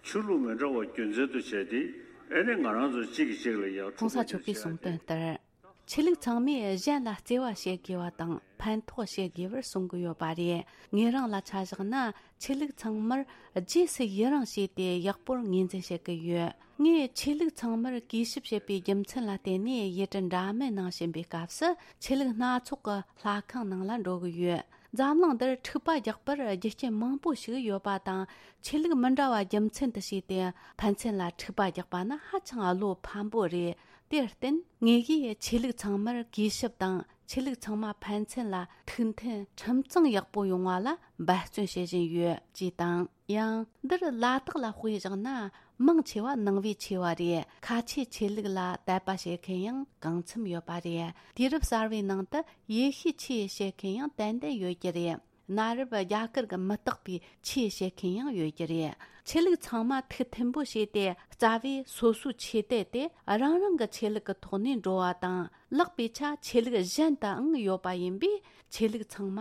ཆོས་ལུགས་མི་འདྲ་བ་རྒྱུ་མཚན་དུ་བྱས་ཏེ། ཨེ་ནི་ང་རང་ཚོ་གཅིག་གིས་གཅིག་ལ་ཡག་ྋགོང་ས་མཆོག་གིས་གསུངས་དོན་ལྟར། ཆོས་ལུགས་ཚང་མས་གཞན་ལ་བརྩེ་བ་བྱེད་དགོས་པ་དང་ཕན་ཐོགས་བྱེད་དགོས་པར་གསུང་གི་ཡོད་པ་རེད། ངེད་རང་ལ་ཆ་བཞག་ན། ཆོས་ལུགས་ཚང་མར་རྗེས་སུ་ཡི་རང་བྱས་ཏེ་ཡག་པོར་ངོས་འཛིན་བྱེད་ཀྱི་ཡོད། ངས་ཆོས་ལུགས་ཚང་མར་གུས་ཞབས་བྱེད་པའི་རྒྱུ་མཚན་ལ་བརྟེན་ནས་ཡུལ་གྲུ་འདྲ་མིན་ནང་ཕྱིན་པའི་སྐབས་སུ། ཆོས་ལུགས་སྣ་ཚོགས་ཀྱི་ལྷ་ཁང་ནང་ལ་འགྲོ་གི་ཡོད། འཛམ་གླིང་འདིར་འཁྲུག་པ་རྒྱག་པར་རྒྱུ་རྐྱེན་མང་པོ་ཞིག་ཡོད་པ་དང་། ཆོས་ལུགས་མི་འདྲ་བ་རྒྱུ་མཚན་དུ་བྱས་ཏེ་ཕན་ཚུན་ལ་འཁྲུག་པ་རྒྱག་པ་ནི་ཧ་ཅང་བློ་ཕམ་པོ་རེད། དེར་བརྟེན། ངེད་ཀྱིས་ཆོས་ལུགས་ཚང་མར་གུས་ཞབས་དང་། ཆོས་ལུགས་ཚང་མ་ཕན་ཚུན་ལ་ཐུགས་མཐུན་ཁྲིམས་གཙང་ཡག་པོ་ཡོང་བ་ལ་འབད་བརྩོན་བྱེད་བཞིན་ཡོད་ཅེས་དང་། ཡང་། འདིར་ལ་དྭགས་ལ་དཔེ་བཞག་ན། མང་ཆེ་བ་ནང་པའི་ཆེ་བ་རེད། ཁ་ཆེའི་ཆོས་ལུགས་ལ་དད་པ་བྱེད་མཁན་ཡང་གང་འཚམ་ཡོད་པ་རེད། དུས་རབས་གསར་བའི་ནང་དུ་ཡེ་ཤུའི་ཆོས་བྱེད་མཁན་ཡང་ཏན་ཏན་ཡོད་ཀྱི་རེད། གནའ་རབས་རྒྱ་གར་གྱི་མི་རྟག་པའི་ཆོས་བྱེད་མཁན་ཡང་ཡོད་ཀྱི་རེད། ཆོས་ལུགས་ཚང་མtweet་མཐུན་པོ་བྱས་ཏེ། རྩ་བའི་སོ་སོའི་ཆོས་དད་དེ་རང་རང་གི་ཆོས་ལུགས་ཀྱི་ཐོག་ནས་འགྲོ་བ་དང་། ལེགས་པའི་ཆ་ཆོས་ལུགས་གཞན་དུའང་ཡོད་པ་ཡིན་པས། ཆོས་ལུགས་ཚང་མ་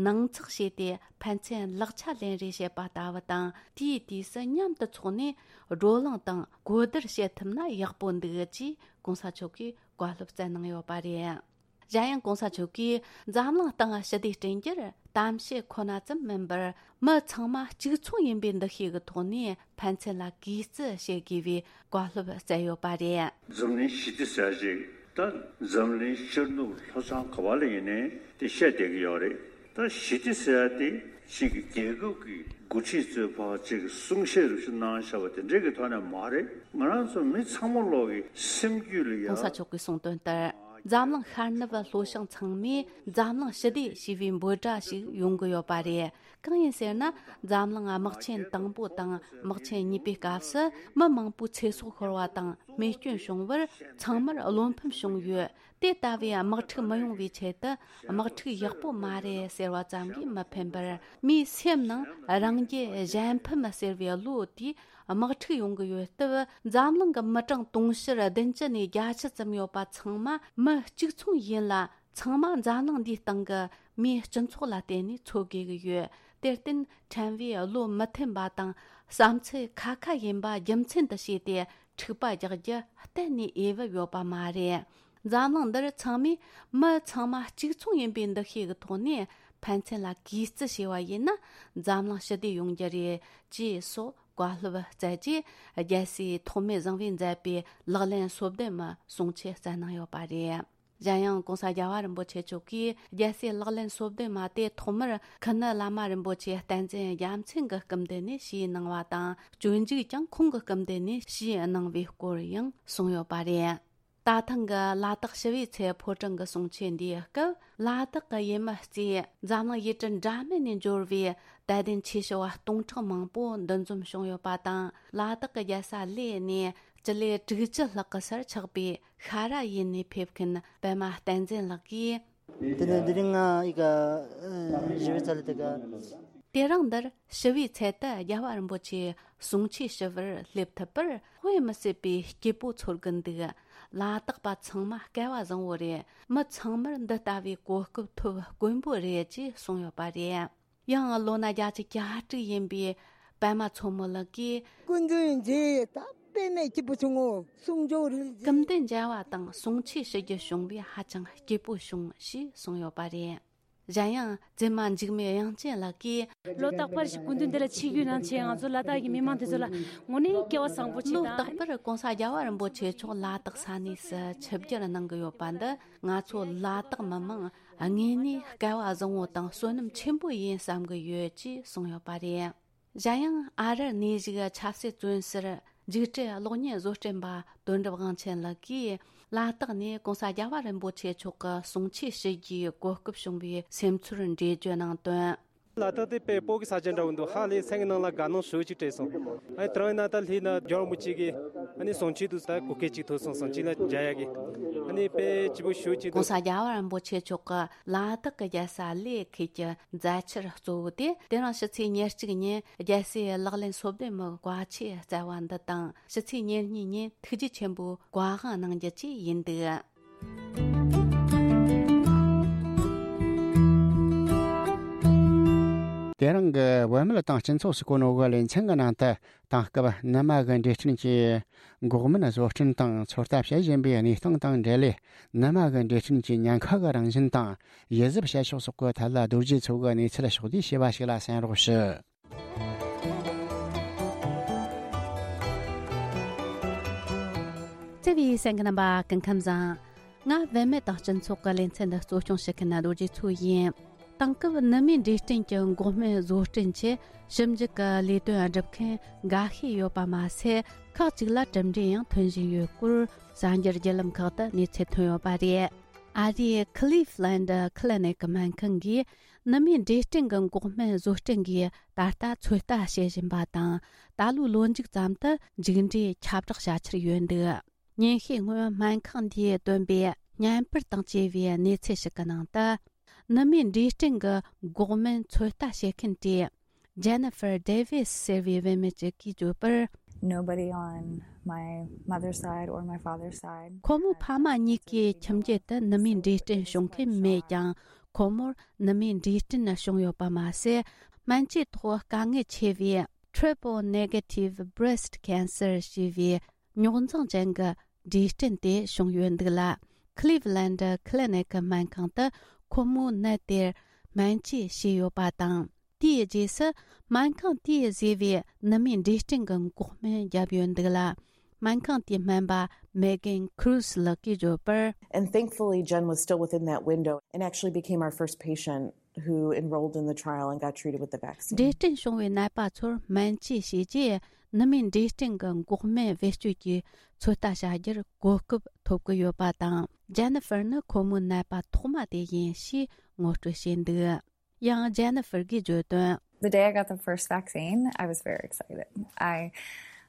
ནང་འཚག་བྱས་ཏེ་ཕན་ཚུན་ལག་ཆ་ལེན་རེས་བྱེད་པ་ལྟ་བུ་དང་། དུས་དུས་སུ་མཉམ་དུ་འཚོགས་ནས་བགྲོ་གླེང་དང་གོ་བསྡུར་བྱེད་ཐུབ་ན་ཡག་པོ་འདུག་ཅེས་ྋགོང་ས་མཆོག་གིས་ བཀའ་སློབ་སྩལ་གནང་ཡོད་པ་རེད། གཞན་ཡང་གོང་ས་མཆོག་གིས་འཛམ་གླིང་སྟེང་ཞི་བདེ་བསྐྲུན་རྒྱུར་གཏམ་བཤད་ཁོ་ན་ཙམ་མིན་པར། མི་ཚང་མ་གཅིག་མཚུངས་ཡིན་པའི་འདུ་ཤེས་ཀྱི་ཐོག་ནས་ཕན་ཚུན་ལ་གུས་བརྩི་བྱེད་དགོས་པའི་བཀའ་སློབ་སྩལ་ཡོད་པ་རེད། འཛམ་གླིང་ཞི་བདེ་ཟེར་ཅིག་ད་འཛམ་གླིང་ཤར་ནུབ་ལྷོ་བྱང་ག་བ་ལ་ཡིན་ནའི་དེ་བཤད་བསྡད་ཀྱི་ཡོད་རེད། ད་ཞི་བདེ་ཟེར་ཡ་དེ་ཅིག་རྒྱལ་ཁབ་ཀྱི་འགོ་ཁྲིད་ཚོས་ཕར་ཅིག་གསུང་བཤད་རུ་ཞིག་གནང་བཞག་པ་དེ་འདྲས་ཀྱི་ཐོག་ནས་མ་རེད། ང་རང་ཚོ་མི་ཚང་མ་ལོག་གི་སེམས་རྒྱུད་ལ་ཡ། གོང་ས་མཆོག་གིས་གསུངས་དོན་ལྟར། འཛམ་གླིང་ཤར་ནུབ་ལྷོ་བྱང་ཚང་མས་འཛམ་གླིང་ཞི་བདེ་ཞེས་པའི་འབོད་སྒྲ་ཞིག་ཡོང་གི་ཡོད་པ་རེད། གང་ཡིན་ཟེར་ན། འཛམ་གླིང་དམག་ཆེན་དང་པོ་དང་དམག་ཆེན་གཉིས་པའི་སྐབས་སུ་མི་མང་པོའི་ཚེ་སྲོག་ཤོར་བ་དང་རྨས་སྐྱོན་བྱུང་བར་ཚང་མར་བློ་ཕམ་བྱུང་ཡོད། དེ་ལྟ་བུའི་དམག་འཁྲུག་མི་ཡོང་བའི་ཆེད་དུ་དམག་འཁྲུག་ཡག་པོ་མ་རེད་ཟེར་བ་ཙམ་གྱིས་མི་ཕན་པར། མིའི་སེམས་ནང་རང་རྒྱལ་གཞན་ཕམ་ཟེར་བའི་བློ་དེས་དམག་འཁྲུག་ཡོང་གི་ཡོད་སྟབས། འཛམ་གླིང་གི་མི་གྲངས་དུང་ཕྱུར་བདུན་ཅུ་ནས་བརྒྱད་ཅུ་ཙམ་ཡོད་པ་ཚང་མ་མི་གཅིག་མཚུངས་ཡིན་ལ། ཚང་མ་འཛམ་གླིང་འདིའི་སྟེང་གི་མིའི་སྤྱི་ཚོགས་ལ་བརྟེན་ནས་འཚོ་དགོས་ཀྱི་ཡོད། དེར་བརྟེན་ཕྲན་བུའི་བློ་མི་མཐུན་པ་དང་བསམ་ཚུལ་ཁ་ཁ་ཡིན་པ་རྒྱུ་མཚན་དུ་བྱས་ཏེ་འཁྲུག་པ་རྒྱག་རྒྱུ་གཏན་ནས་འོས་བབ་ཡོད་པ་མ་རེད། འཛམ་གླིང་འདིར་ཚང་མས་མི་ཚང་མ་གཅིག་མཚུངས་ཡིན་པའི་འདུ་ཤེས་ཀྱི་ཐོག་ནས་ཕན་ཚུན་ལ་གུས་བརྩི་བྱས་པ་ཡིན་ན། འཛམ་གླིང་ཞི་བདེ་ཡོང་རྒྱུ་རེད་ཅེས་སོགས་བཀའ་སློབ་སྩལ་རྗེས། རྒྱལ་སྲས་ཐོགས་མེད་བཟང་པོས་མཛད་པའི་ལག་ལེན་སོ་བདུན་མའི་གསུང་ཆོས་སྩལ་གནང་ཡོད་པ་རེད། གཞན་ཡང་གོང་ས་རྒྱལ་བ་རིན་པོ་ཆེ་མཆོག་གིས་རྒྱལ་སྲས་ལག་ལེན་སོ་བདུན་མ་དེ་ཐོག་མར་ཁུ་ནུ་བླ་མ་རིན་པོ་ཆེ་བསྟན་འཛིན་རྒྱལ་མཚན་གྱི་སྐུ་མདུན་ནས་ཞུས་གནང་བ་དང་། སྤྱོད་འཇུག་ཀྱང་ཁོང་གི་སྐུ་མདུན་ནས་ཞུས་གནང་བའི་སྐོར་ཡང་གསུངས་ཡོད་པ་རེད། ད་ཐེངས་ཀྱི་ལ་དྭགས་ཞི་བའི་ཚལ་ཕོ་བྲང་གི་གསུང་ཆོས་འདིའི་སྐབས། ལ་དྭགས་ཀྱི་ཡུལ་མི་རྩིས་འཛམ་གླིང་ཡུལ་གྲུ་འདྲ་མིན་ནས་འབྱོར་བའི་དད་ལྡན་ཆོས་ཞུ་བ་སྟོང་ཕྲག་མང་པོ་འདུ་འཛོམས་བྱུང་ཡོད་པ་དང་། ལ་དྭགས་ཀྱི་རྒྱལ་ས་གླེ་ནས་སྤྱི་ལེ་དྲུག་ཅུ་ལྷག་གི་སར་ཆགས་པའི་ཤ་ར་ཡུལ་ནས་ཕེབས་མཁན་པད་མ་བསྟན་འཛིན་ལགས་ཀྱིས། དེ་ནས་དེ་རིང་ང་ཨི་ཀ་ཨ་ཞི་བའི་ཚལ་དེ་ག་དེ་རིང་འདིར་ཞི་བའི་ཚལ་དུ་རྒྱལ་བ་རིན་པོ་ཆེ་གསུང་ཆོས་ཞུ་བར་སླེབས་ཐུབ་པར་དཔེ་མི་སྲིད་པའི་སྐྱིད་པོ་ཚོར་གྱི་འདུག་ལ་དྭགས་པ་ཚང་མ་སྐལ་བ་བཟང་བོ་རེད། མི་ཚང་མར་འདི་ལྟ་བུའི་གོ་སྐབས་ཐོབ་དཀོན་པོ་རེད་ཅེས་གསུངས་ཡོད་པ་རེད། ཡང་ལོ་ན་བརྒྱད་ཅུ་གྱ་དྲུག་ཡིན་པའི་པད་མ་མཚོ་མོ་ལགས་ཀྱིས། སྐུ་མདུན་མཇལ་ཡས་ད་དཔེ་མེད་སྐྱིད་པོ་བྱུང་ངོ་། གསུང་ཆོས་རིལ་རིལ། སྐུ་མདུན་མཇལ་བ་དང་གསུང་ཆོས་ཞུ་རྒྱུ་བྱུང་བས་ཧ་ཅང་སྐྱིད་པོ་བྱུང་ཞེས་གསུངས་ཡོད་པ་རེད། གཞན་ཡང་བཙུན་མ་འཇིགས་མེད་དབྱངས་ཅན་ལགས་ཀྱིས། ལོ་རྟག་པར་ཞིག་སྐུ་མདུན་འདི་ལ་ཆིབས་བསྒྱུར་གནང་ཆེད་ང་ཚོ་ལ་དྭགས་ཀྱི་མི་མང་དེ་ཚོ་ལ་དངོས་གནས་སྐལ་བ་བཟང་པོ་ཅིག་ལོ་དང་། རྟག་པར་༸གོང་ས་རྒྱལ་བ་རིན་པོ་ཆེ་མཆོག་ལ་དྭགས་ས་གནས་སུ་ཆིབས་བསྒྱུར་གནང་གི་ཡོད་པ་འདི་ང་ཚོ་ལ་དྭགས་མི་མང་དངོས་གནས་སྐལ་བ་བཟང་བོ་དང་བསོད་ནམས་ཆེན་པོ་ཡིན་བསམ་གྱི་ཡོད་ཅེས་གསུངས་ཡོད་པ་རེད། གཞན་ཡང་ཨ་རིར་གནས་བཞུགས་ཆབ་སྲིད་བཙོན་ཟུར་འཇིགས་བྲལ་གློག་བརྙན་བཟོ་སྐྲུན་པ་དོན་གྲུབ་དབང་ཆེན་ལགས་ཀྱིས། ལ་དྭགས་ནས་༸གོང་ས་རྒྱལ་བ་རིན་པོ་ཆེ་མཆོག་གི་གསུང་ཆོས་ཞུ་རྒྱུའི་གོ་སྐབས་བྱུང་བའི་སེམས་ཚོར་འགྲེལ་བརྗོད་གནང་དོན། ལ་དྭགས་དེ་དཔེ་སྤོ་གི་ས་ཆ་འདྲ་བོ་འདུག་ཧ་ལས་སེམས་ཀྱི་ནང་ལ་དགའ་སྣང་ཞེ་པོ་ཅིག་སྤྲད་སོང་། ཨ་ནི་དྲང་ཡིན་ན་ད་ལྷས་ན་རྒྱལ་བ་རིན་པོ་ཆེ་གི་ཨ་ནི་གསུང་ཆོས་དུ་ད་གོ་སྐལ་ཅིག་ཐོབ་སོང་། གསུང་ཆོས་ལ་མཇལ་ཡ་གི་ཨ་ནི་དཔེ་སྐྱིད་པོ་ཞེ་པོ་ཅིག་འདུག ༸གོང་ས་རྒྱལ་བ་རིན་པོ་ཆེ་མཆོག་གི་ལ་དྭགས་ཀྱི་རྒྱལ་ས་གླེ་ཁུལ་གྱི་མཛད་འཆར་གཙོ་བོ་དེ། དེ་རིང་ཕྱི་ཚེས་ཉེར་གཅིག་ཉིན་རྒྱལ་སྲས་ལག་ལེན་སོ་བདུན་མའི་བཀའ་ཆོས་སྩལ་བ་འདི་དང་། ཕྱི་ཚེས་ཉེར་གཉིས་ཉིན་ཐུགས་རྗེ་ཆེན་པོའི་བཀའ་དབང་གནང་རྒྱུ་བཅས་ཡིན་འདུག་དེ་རིང་གི་བོད་མི་དང་སྤྱི་ཚོགས་སུ་གོ་ནོ་གི་ལེ་ཚན་གྱི་ནང་དུ། དེང་སྐབས་ནུ་མ་གི་འབྲས་སྐྲན་གྱི་འགོག་སྨན་བཟོ་སྐྲུན་དང་ཚོད་ལྟ་བྱེད་བཞིན་པའི་གནས་སྟངས་དང་འབྲེལ་ལས། ནུ་མ་གི་འབྲས་སྐྲན་གྱི་ཉེན་ཁ་གི་རང་བཞིན་དང་ཡིད་གཟབ་བྱེད་ཕྱོགས་སོགས་ཀྱི་ཐད་ལ་རྡོ་རྗེ་མཚོ་གིས་གནས་ཚུལ་ཕྱོགས་བསྡུས་བྱས་པ་ཞིག་ལ་གསན་རོགས་ཞུ། བརྩེ་བའི་གསན་མཁན་རྣམ་པ་སྐུ་ཁམས་བཟང་། ང་བུད་མེད་དང་སྤྱི་ཚོགས་ཀྱི་ལེ་ཚན་འདི་གཙོ་སྐྱོང་བྱེད་མཁན་རྡོ་རྗེ་མཚོ་ཡིན། དེང་སྐབས་ནུ་མའི་འབྲས་སྐྲན་གྱི་འགོག་སྨན་བཟོ་སྐྲུན་ཆེད་ཞིབ་འཇུག་གི་ལས་དོན་སྒྲུབ་མཁན་འགའ་ཤས་ཡོད་པ་མ་ཟད། ཁག་ཅིག་ལ་གྲུབ་འབྲས་ཡང་ཐོན་བཞིན་ཡོད་སྐོར་གསར་འགྱུར་བརྒྱུད་ལམ་ཁག་ཏུ་གནས་ཚུལ་ཐོན་ཡོད་པ་རེད། ཨ་རིའི་Cleveland Clinic སྨན་ཁང་གིས་ནུ་མའི་འབྲས་སྐྲན་གྱི་འགོག་སྨན་བཟོ་སྐྲུན་གྱི་ད་ལྟ་ཚོད་ལྟ་བྱེད་བཞིན་པ་དང་། ད་ལོའི་ལོ་མཇུག་ཙམ་དུ་མཇུག་འབྲས་ཁྱབ་བསྒྲགས་བྱ་འཆར་ཡོད་འདུག་ཉིན་ཤས་སྔོན་སྨན་ཁང་འདིས་བཏོན་པའི་བརྙན་པར་དང་བཅས་པའི་གནས་ཚུལ་ཞིག་གི་ནང་དུ། ནུ་མའི་འབྲས་སྐྲན་གྱི་འགོག་སྨན་ཚོད་ལྟ་བྱེད་མཁན་གྱི་Jennifer Davis ཟེར་བའི་བུད་མེད་ཅིག་གིས་བརྗོད་པར། Nobody on my mother's side or my father's side. ཁོ་མོའི་ཕ་མ་གཉིས་ཀའི་ཁྱིམ་རྒྱུད་དུ་ནུ་མའི་འབྲས་སྐྲན་བྱུང་མཁན་མེད་ཀྱང་། ཁོ་མོར་ནུ་མའི་འབྲས་སྐྲན་བྱུང་ཡོད་པ་མ་ཟད། སྨན་བཅོས་ཐོག་དཀའ་ངལ་ཆེ་བའི་Triple Negative Breast Cancer ཞེས་པའི་རྙོག་འཛིང་ཅན་གྱི་ འབྲས་སྐྲན་དེ་བྱུང་ཡོད་འདུག་ལ། Cleveland Clinic སྨན་ཁང་དུ་ཁོ་མོའི་ནད་དེར་སྨན་བཅོས་བྱས་ཡོད་པ་དང་། དེའི་རྗེས་སུ་སྨན་ཁང་དེས་བཟོས་པའི་ནུ་མའི་འབྲས་སྐྲན་གྱི་འགོག་སྨན་བརྒྱབ་ཡོད་འདུག་ལ། སྨན་ཁང་དེའི་སྨན་པ་Megan Cruz ལགས་ཀྱིས་བརྗོད་པར། And thankfully, Jen was still within that window and actually became our first patient who enrolled in the trial and got treated with the vaccine. འབྲས་སྐྲན་བྱུང་བའི་ནད་པ་ཚོར་སྨན་བཅོས་བྱས་རྗེས། ནུ་མའི་འབྲས་སྐྲན་གྱི་འགོག་སྨན་བེད་སྤྱོད་ཀྱི་ཚོད་ལྟ་བྱ་རྒྱུར་གོ་སྐབས་ཐོབ་ཀྱི་ཡོད་པ་དང་། Jennifer ནི་ཁོ་མོའི་ནད་པ་ཐོག་མ་དེ་ཡིན་ཞེས་ངོ་སྤྲོད་བྱས་འདུག་ཡང་Jennifer གིས་བརྗོད་དོན། The day I got the first vaccine, I was very excited. I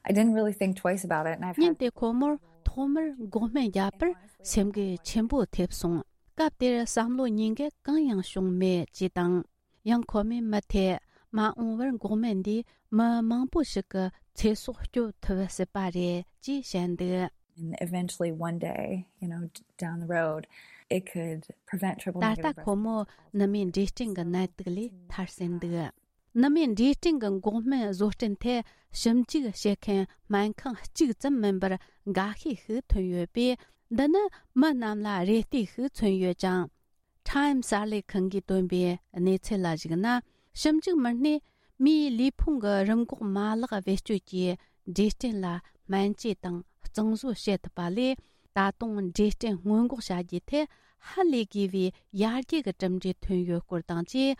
I didn't really think twice about it, and I've had ཉིན་དེ་ཁོ་མོར་ཐོག་མར་འགོག་སྨན་བརྒྱབ་པར་སེམས་འགུལ་ཆེན་པོ་ཐེབས་སོང་། སྐབས་དེར་བསམ་བློ་གཉིས་འགལ་གང་ཡང་བྱུང་མེད་ཅེས་དང་། ཡང་ཁོ་མོས་མུ་མཐུད་མ་འོངས་པར་འགོག་སྨན་འདིས་མི་མང་པོ་ཞིག་གི་ཚེ་སྲོག་སྐྱོབ་ཐུབ་སྲིད་པ་རེད་ཅེས་བཤད་འདུག And eventually, one day, you know, d- down the road, it could prevent triple ད་ལྟ་negative breast ཁོ་མོ་ནུ་མའི་འབྲས་སྐྲན་གྱི་ནད་དུག་ལས་ཐར་ཟིན་འདུག་ནུ་མའི་འབྲས་སྐྲན་གྱི་འགོག་སྨན་བཟོ་སྐྲུན་ཐད་ཞིབ་འཇུག་བྱེད་མཁན་སྨན་ཁང་གཅིག་ཙམ་མིན་པར་འགའ་ཤས་ཤིག་ཐོན་ཡོད་པས། འདི་ནི་མི་རྣམས་ལ་རེ་ལྟོས་ཤིག་མཚོན་ཡོད་ཅིང་། Time གསར་ལས་ཁང་གིས་བཏོན་པའི་གནས་ཚུལ་ལ་གཞིགས་ན། ཞིབ་འཇུག་མི་སྣས་མིའི་ལུས་ཕུང་གི་རིམས་འགོག་མ་ལག་བེད་སྤྱོད་ཀྱིས་འབྲས་སྐྲན་ལ་སྨན་བཅོས་དང་གཙང་བཟོ་བྱེད་ཐུབ་པ་ལས། ད་དུང་འབྲས་སྐྲན་སྔོན་འགོག་བྱ་རྒྱུའི་ཐད་ཧ་ལས་དགོས་པའི་ཡར་རྒྱས་ཀྱི་གྲུབ་འབྲས་ཐོན་ཡོད་སྐོར་དང་བཅས།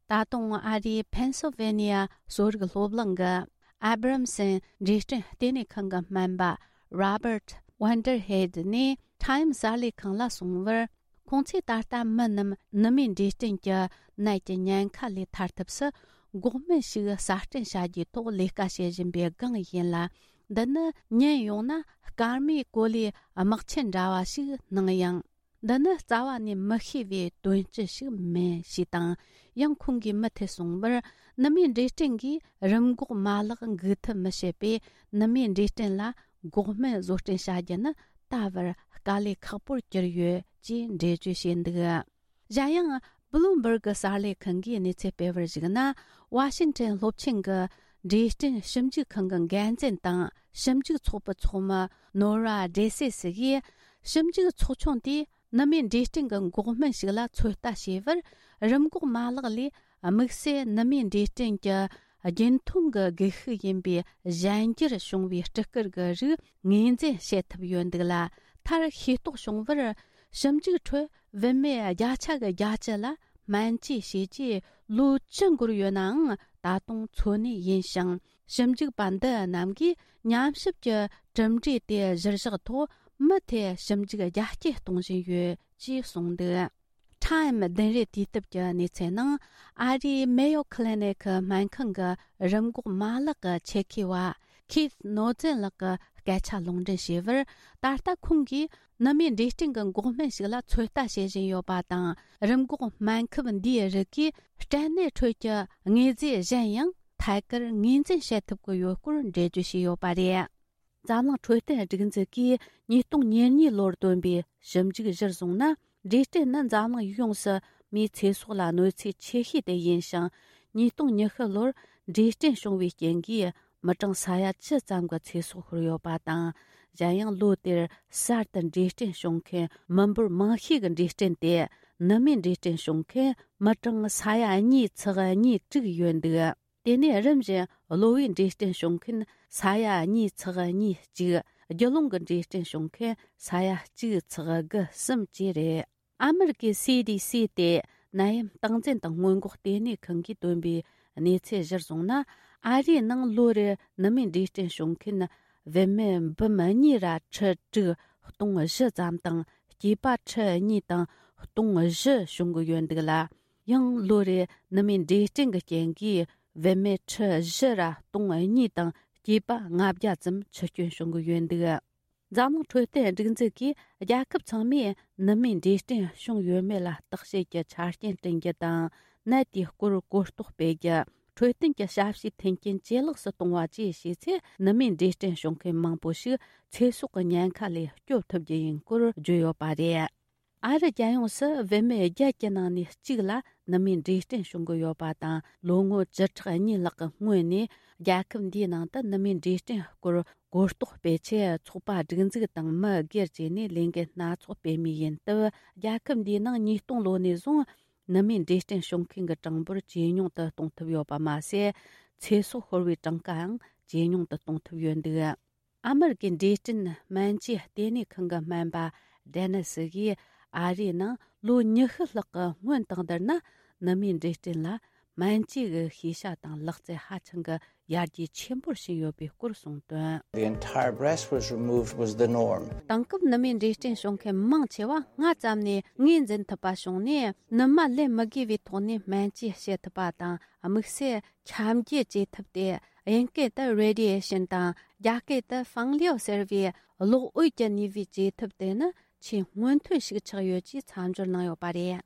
ད་དུང་ཨ་རིའི་Pennsylvania གསོ་རིག་སློབ་གླིང་གི་Abramson འབྲས་སྐྲན་ལྟེ་གནས་ཁང་གི་སྨན་པ་Robert Vanderheid ནས་Time གསར་ལས་ཁང་ལ་གསུངས་པར། ཁོང་ཚོས་ད་ལྟ་མི་རྣམས་ནུ་མའི་འབྲས་སྐྲན་གྱི་ནད་ཀྱི་ཉེན་ཁ་ལས་ཐར་ཐབས་སུ་འགོག་སྨན་ཞིག་གསར་སྐྲུན་བྱ་རྒྱུའི་ཐོག་ལས་ཀ་བྱེད་བཞིན་པའི་སྒང་ཡིན་ལ། འདི་ནི་ཉན་ཡོང་ན་སྐར་མའི་གོ་ལའི་དམག་ཆེན་འདྲ་བ་ཞིག་སྣང་ཡང་། འདི་ནི་རྩ་བ་ནས་མི་ཤེས་པའི་དོན་སྤྱི་ཞིག་མིན་ཞེས་དང་། ཡང་ཁོང་གིས་མུ་མཐུད་གསུངས་པར། ནུ་མའི་འབྲས་སྐྲན་གྱིས་རིམས་འགོག་མ་ལག་འགུག་ཐབས་མི་བྱེད་པས། ནུ་མའི་འབྲས་སྐྲན་ལ་འགོག་སྨན་བཟོ་སྐྲུན་བྱ་རྒྱུ་ནི་ད་བར་དཀའ་ལས་ཁག་པོར་གྱུར་ཡོད་ཅེས་འགྲེལ་བརྗོད་བྱས་འདུག་གཞན་ཡང་། Bloomberg གསར་ལས་ཁང་གིས་གནས་ཚུལ་སྤེལ་བར་གཞིགས་ན། ཝ་ཤིང་ཊོན་སློབ་ཆེན་གྱི་འབྲས་སྐྲན་ཞིབ་འཇུག་ཁང་གི་འགན་འཛིན་དང་ཞིབ་འཇུག་ཚོགས་པའི་ཚོགས་མི་Nora Dessys གིས། ཞིབ་འཇུག་ཚོགས་ཆུང་དེས་ནུ་མའི་འབྲས་སྐྲན་གྱི་འགོག་སྨན་ཞིག་ལ་ཚོད་ལྟ་བྱས་པར། རིམས་འགོག་མ་ལག་ལས་དམིགས་བསལ་ནུ་མའི་འབྲས་སྐྲན་གྱི་རྒྱུན་མཐོང་གི་སྒུལ་ཤུགས་ཡིན་པའི་གཞན་འགྱུར་བྱུང་བའི་སྤྲི་དཀར་གྱི་རིགས་ངོས་འཛིན་བྱེད་ཐུབ་ཡོད་འདུག་ལ། མཐར་ཤེས་རྟོགས་བྱུང་བར། ཞིབ་འཇུག་ཁྲོད་བུད་མེད་བརྒྱ་ཆ་གི་བརྒྱད་ཅུ་ལ་སྨན་བཅོས་བྱས་རྗེས་ལོ་བཅུ་འགོར་ཡོད་ནའང་ད་དུང་འཚོ་གནས་ཡིན་ཞིང་། ཞིབ་འཇུག་པ་འདི་རྣམས་ཀྱིས་ཉམས་ཞིབ་ཀྱི་གྲུབ་འབྲས་དེ་གཞིར་བཞག་ཐོག་མུ་མཐུད་ཞིབ་འཇུག་རྒྱ་སྐྱེད་གཏོང་བཞིན་ཡོད་ཅེས་གསུངས་འདུག Time བདུན་རེ་དུས་དེབ་ཀྱི་གནས་ཚུལ་ནང་། ཨ་རིའི་Mayo Clinic སྨན་ཁང་གི་རིམས་འགོག་མ་ལག་གི་ཆེད་མཁས་པ་Keith Noesen ལགས་ཀྱི་སྐད་ཆ་ལུང་འདྲེན་བྱས་པར། ད་ལྟ་ཁོང་གིས་ནུ་མའི་འབྲས་སྐྲན་གྱི་འགོག་སྨན་ཞིག་ལ་ཚོད་ལྟ་བྱེད་བཞིན་ཡོད་པ་དང་། རིམས་འགོག་སྨན་ཁབ་འདིའི་རིགས་ཀྱིས་སྐྲན་ནད་ཁྲོད་ཀྱི་དངོས་རྫས་གཞན་ཡང་ཐད་ཀར་ངོས་འཛིན་བྱེད་ཐུབ་ཀྱི་ཡོད་སྐོར་འགྲེལ་བརྗོད་བྱས་ཡོད་པ་རེད། འཛམ་གླིང་འཕྲོད་བསྟེན་སྒྲིག་འཛུགས་ཀྱིས་ཉིས་སྟོང་ཉེར་གཉིས་ལོར་བཏོན་པའི་ཞིབ་འཇུག་གཞིར་བཟུང་ན། འབྲས་སྐྲན་ནི་འཛམ་གླིང་ཡོངས་སུ་མིའི་ཚེ་སྲོག་ལ་གནོད་འཚེ་ཆེ་ཤོས་དེ་ཡིན་ཞིང་། ཉིས་སྟོང་ཉི་ཤུ་ལོར་འབྲས་སྐྲན་བྱུང་བའི་རྐྱེན་གྱིས་མི་གྲངས་ས་ཡ་བཅུ་ཙམ་གྱི་ཚེ་སྲོག་ཤོར་ཡོད་པ་དང་། གཞན་ཡང་ལོ་དེར་གསར་དུ་འབྲས་སྐྲན་བྱུང་མཁན་མི་འབོར་མང་ཤོས་ཀྱི་འབྲས་སྐྲན་དེ་ནུ་མའི་འབྲས་སྐྲན་བྱུང་མཁན་མི་གྲངས་ས་ཡ་གཉིས་ཚེག་གཉིས་དྲུག་ཡོད་འདུག་དེ་ནས་རིམ་བཞིན་གློ་བའི་འབྲས་སྐྲན་བྱུང་མཁན་ས་ཡ་གཉིས་ཚེག་གཉིས་གཅིག་རྒྱུ་ཀླུང་གི་འབྲས་སྐྲན་བྱུང་མཁན་ས་ཡ་གཅིག་ཚེག་དགུ་གསུམ་བཅས་རེད། ཨ་མེ་རི་ཀའི་སི་ཌི་སི་སྟེ་ནད་ཡམས་སྟངས་འཛིན་དང་སྔོན་འགོག་ལྟེ་གནས་ཁང་གིས་བཏོན་པའི་གནས་ཚུལ་གཞིར་བཟུང་ན། ཨ་རིའི་ནང་ལོ་རེར་ནུ་མའི་འབྲས་སྐྲན་བྱུང་མཁན་བུད་མེད་འབུམ་གཉིས་ར་ཁྲི་དྲུག་སྟོང་བཞི་ཙམ་དང་། སྐྱེས་པ་ཁྲི་གཉིས་དང་སྟོང་བཞི་བྱུང་གི་ཡོད་འདུག་ལ། ཡང་ལོ་རེར་ནུ་མའི་འབྲས་སྐྲན་གྱི་རྐྱེན་གྱིས་བུད་མེད་ཁྲི་བཞི་ར་སྟོང་གཉིས་དང་སྐྱེས་པ་ལྔ་བརྒྱ་ཙམ་འཆི་སྐྱོན་བྱུང་གི་ཡོད་འདུག་འཛམ་གླིང་འཕྲོད་བསྟེན་སྒྲིག་འཛུགས་ཀྱིས་རྒྱལ་ཁབ་ཚང་མས་ནུ་མའི་འབྲས་སྐྲན་བྱུང་ཡོད་མེད་ལ་བརྟག་དཔྱད་ཀྱི་ཆ་རྐྱེན་བསྐྲུན་རྒྱུ་དང་། ནད་དེའི་སྐོར་གོ་རྟོགས་སྤེལ་རྒྱུ། འཕྲོད་བསྟེན་གྱི་ཞབས་ཞུའི་མཐུན་རྐྱེན་ཇེ་ལེགས་སུ་གཏོང་བ་བཅས་བྱས་ཚེ། ནུ་མའི་འབྲས་སྐྲན་བྱུང་མཁན་མང་པོ་ཞིག་ཚེ་སྲོག་གི་ཉེན་ཁ་ལས་སྐྱོབ་ཐུབ་རྒྱུ་ཡིན་སྐོར་བརྗོད་ཡོད་པ་རེད། ཨ་རི་རྒྱལ་ཡོངས་སུ་བུད་མེད་བརྒྱད་ཀྱི་ནང་ནས་གཅིག་ལ་ནུ་མའི་འབྲས་སྐྲན་བྱུང་གི་ཡོད་པ་དང་། ལོ་ངོ་བཅུ་ཕྲག་གཉིས་ལྷག་གི་སྔོན་ནས་རྒྱལ་ཁབ་འདིའི་ནང་དུ་ནུ་མའི་འབྲས་སྐྲན་སྐོར་ གོ་རྟོགས་སྤེལ་ཆེད་ཚོགས་པ་སྒྲིག་འཛུགས་དང་མི་སྒེར་བཅས་ནས་ལས་འགུལ་སྣ་ཚོགས་སྤེལ་མུས་ཡིན་སྟབས། རྒྱལ་ཁབ་འདིའི་ནང་ཉིས་སྟོང་ལོ་ནས་བཟུང་ནུ་མའི་འབྲས་སྐྲན་བྱུང་མཁན་གྱི་གྲངས་འབོར་ཇེ་ཉུང་དུ་གཏོང་ཐུབ་ཡོད་པ་མ་ཟད། ཚེ་སྲོག་ཤོར་བའི་གྲངས་ཀའང་ཇེ་ཉུང་དུ་གཏོང་ཐུབ་ཡོད་འདུག་ཨ་མེ་རི་ཀའི་འབྲས་སྐྲན་སྨན་བཅོས་ལྟེ་གནས་ཁང་གི་སྨན་པ་ཌེ་ནི་སི་གིས། ཨ་རིའི་ནང་ལོ་ཉི་ཤུ་ལྷག་གི་སྔོན་དང་བསྡུར་ན། ནུ་མའི་འབྲས་སྐྲན་ལ་སྨན་བཅོས་ཀྱི་ཤེས་བྱ་དང་ལག་རྩལ་ཧ་ཅང་གི་ཡར་རྒྱས་ཆེན་པོར་ཕྱིན་ཡོད་པའི་སྐོར་གསུངས་དོན། The entire breast was removed was the norm. དེང་སྐབས་ནུ་མའི་འབྲས་སྐྲན་བྱུང་མཁན་མང་ཆེ་བ་སྔ་ཙམ་ནས་ངོས་འཛིན་ཐུབ་པ་བྱུང་ནས། ནུ་མ་ལེན་མི་དགོས་པའི་ཐོག་ནས་སྨན་བཅོས་བྱེད་ཐུབ་པ་དང་། དམིགས་བསལ་ཁྱབ་འགྱེད་བྱེད་ཐབས་ཏེ། དབྱིན་སྐད་དུ་radiation དང་རྒྱ་སྐད་དུ་ཕང་ལིའོ་ཟེར་བའི་གློག་འོད་ཀྱི་ནུས་པའི་བཅོས་ཐབས་དེ་ནི་ཆེས་སྔོན་ཐོན་ཞིག་ཆགས་ཡོད་ཅེས་མཚམས་སྦྱོར་གནང་ཡོད་པ་རེད།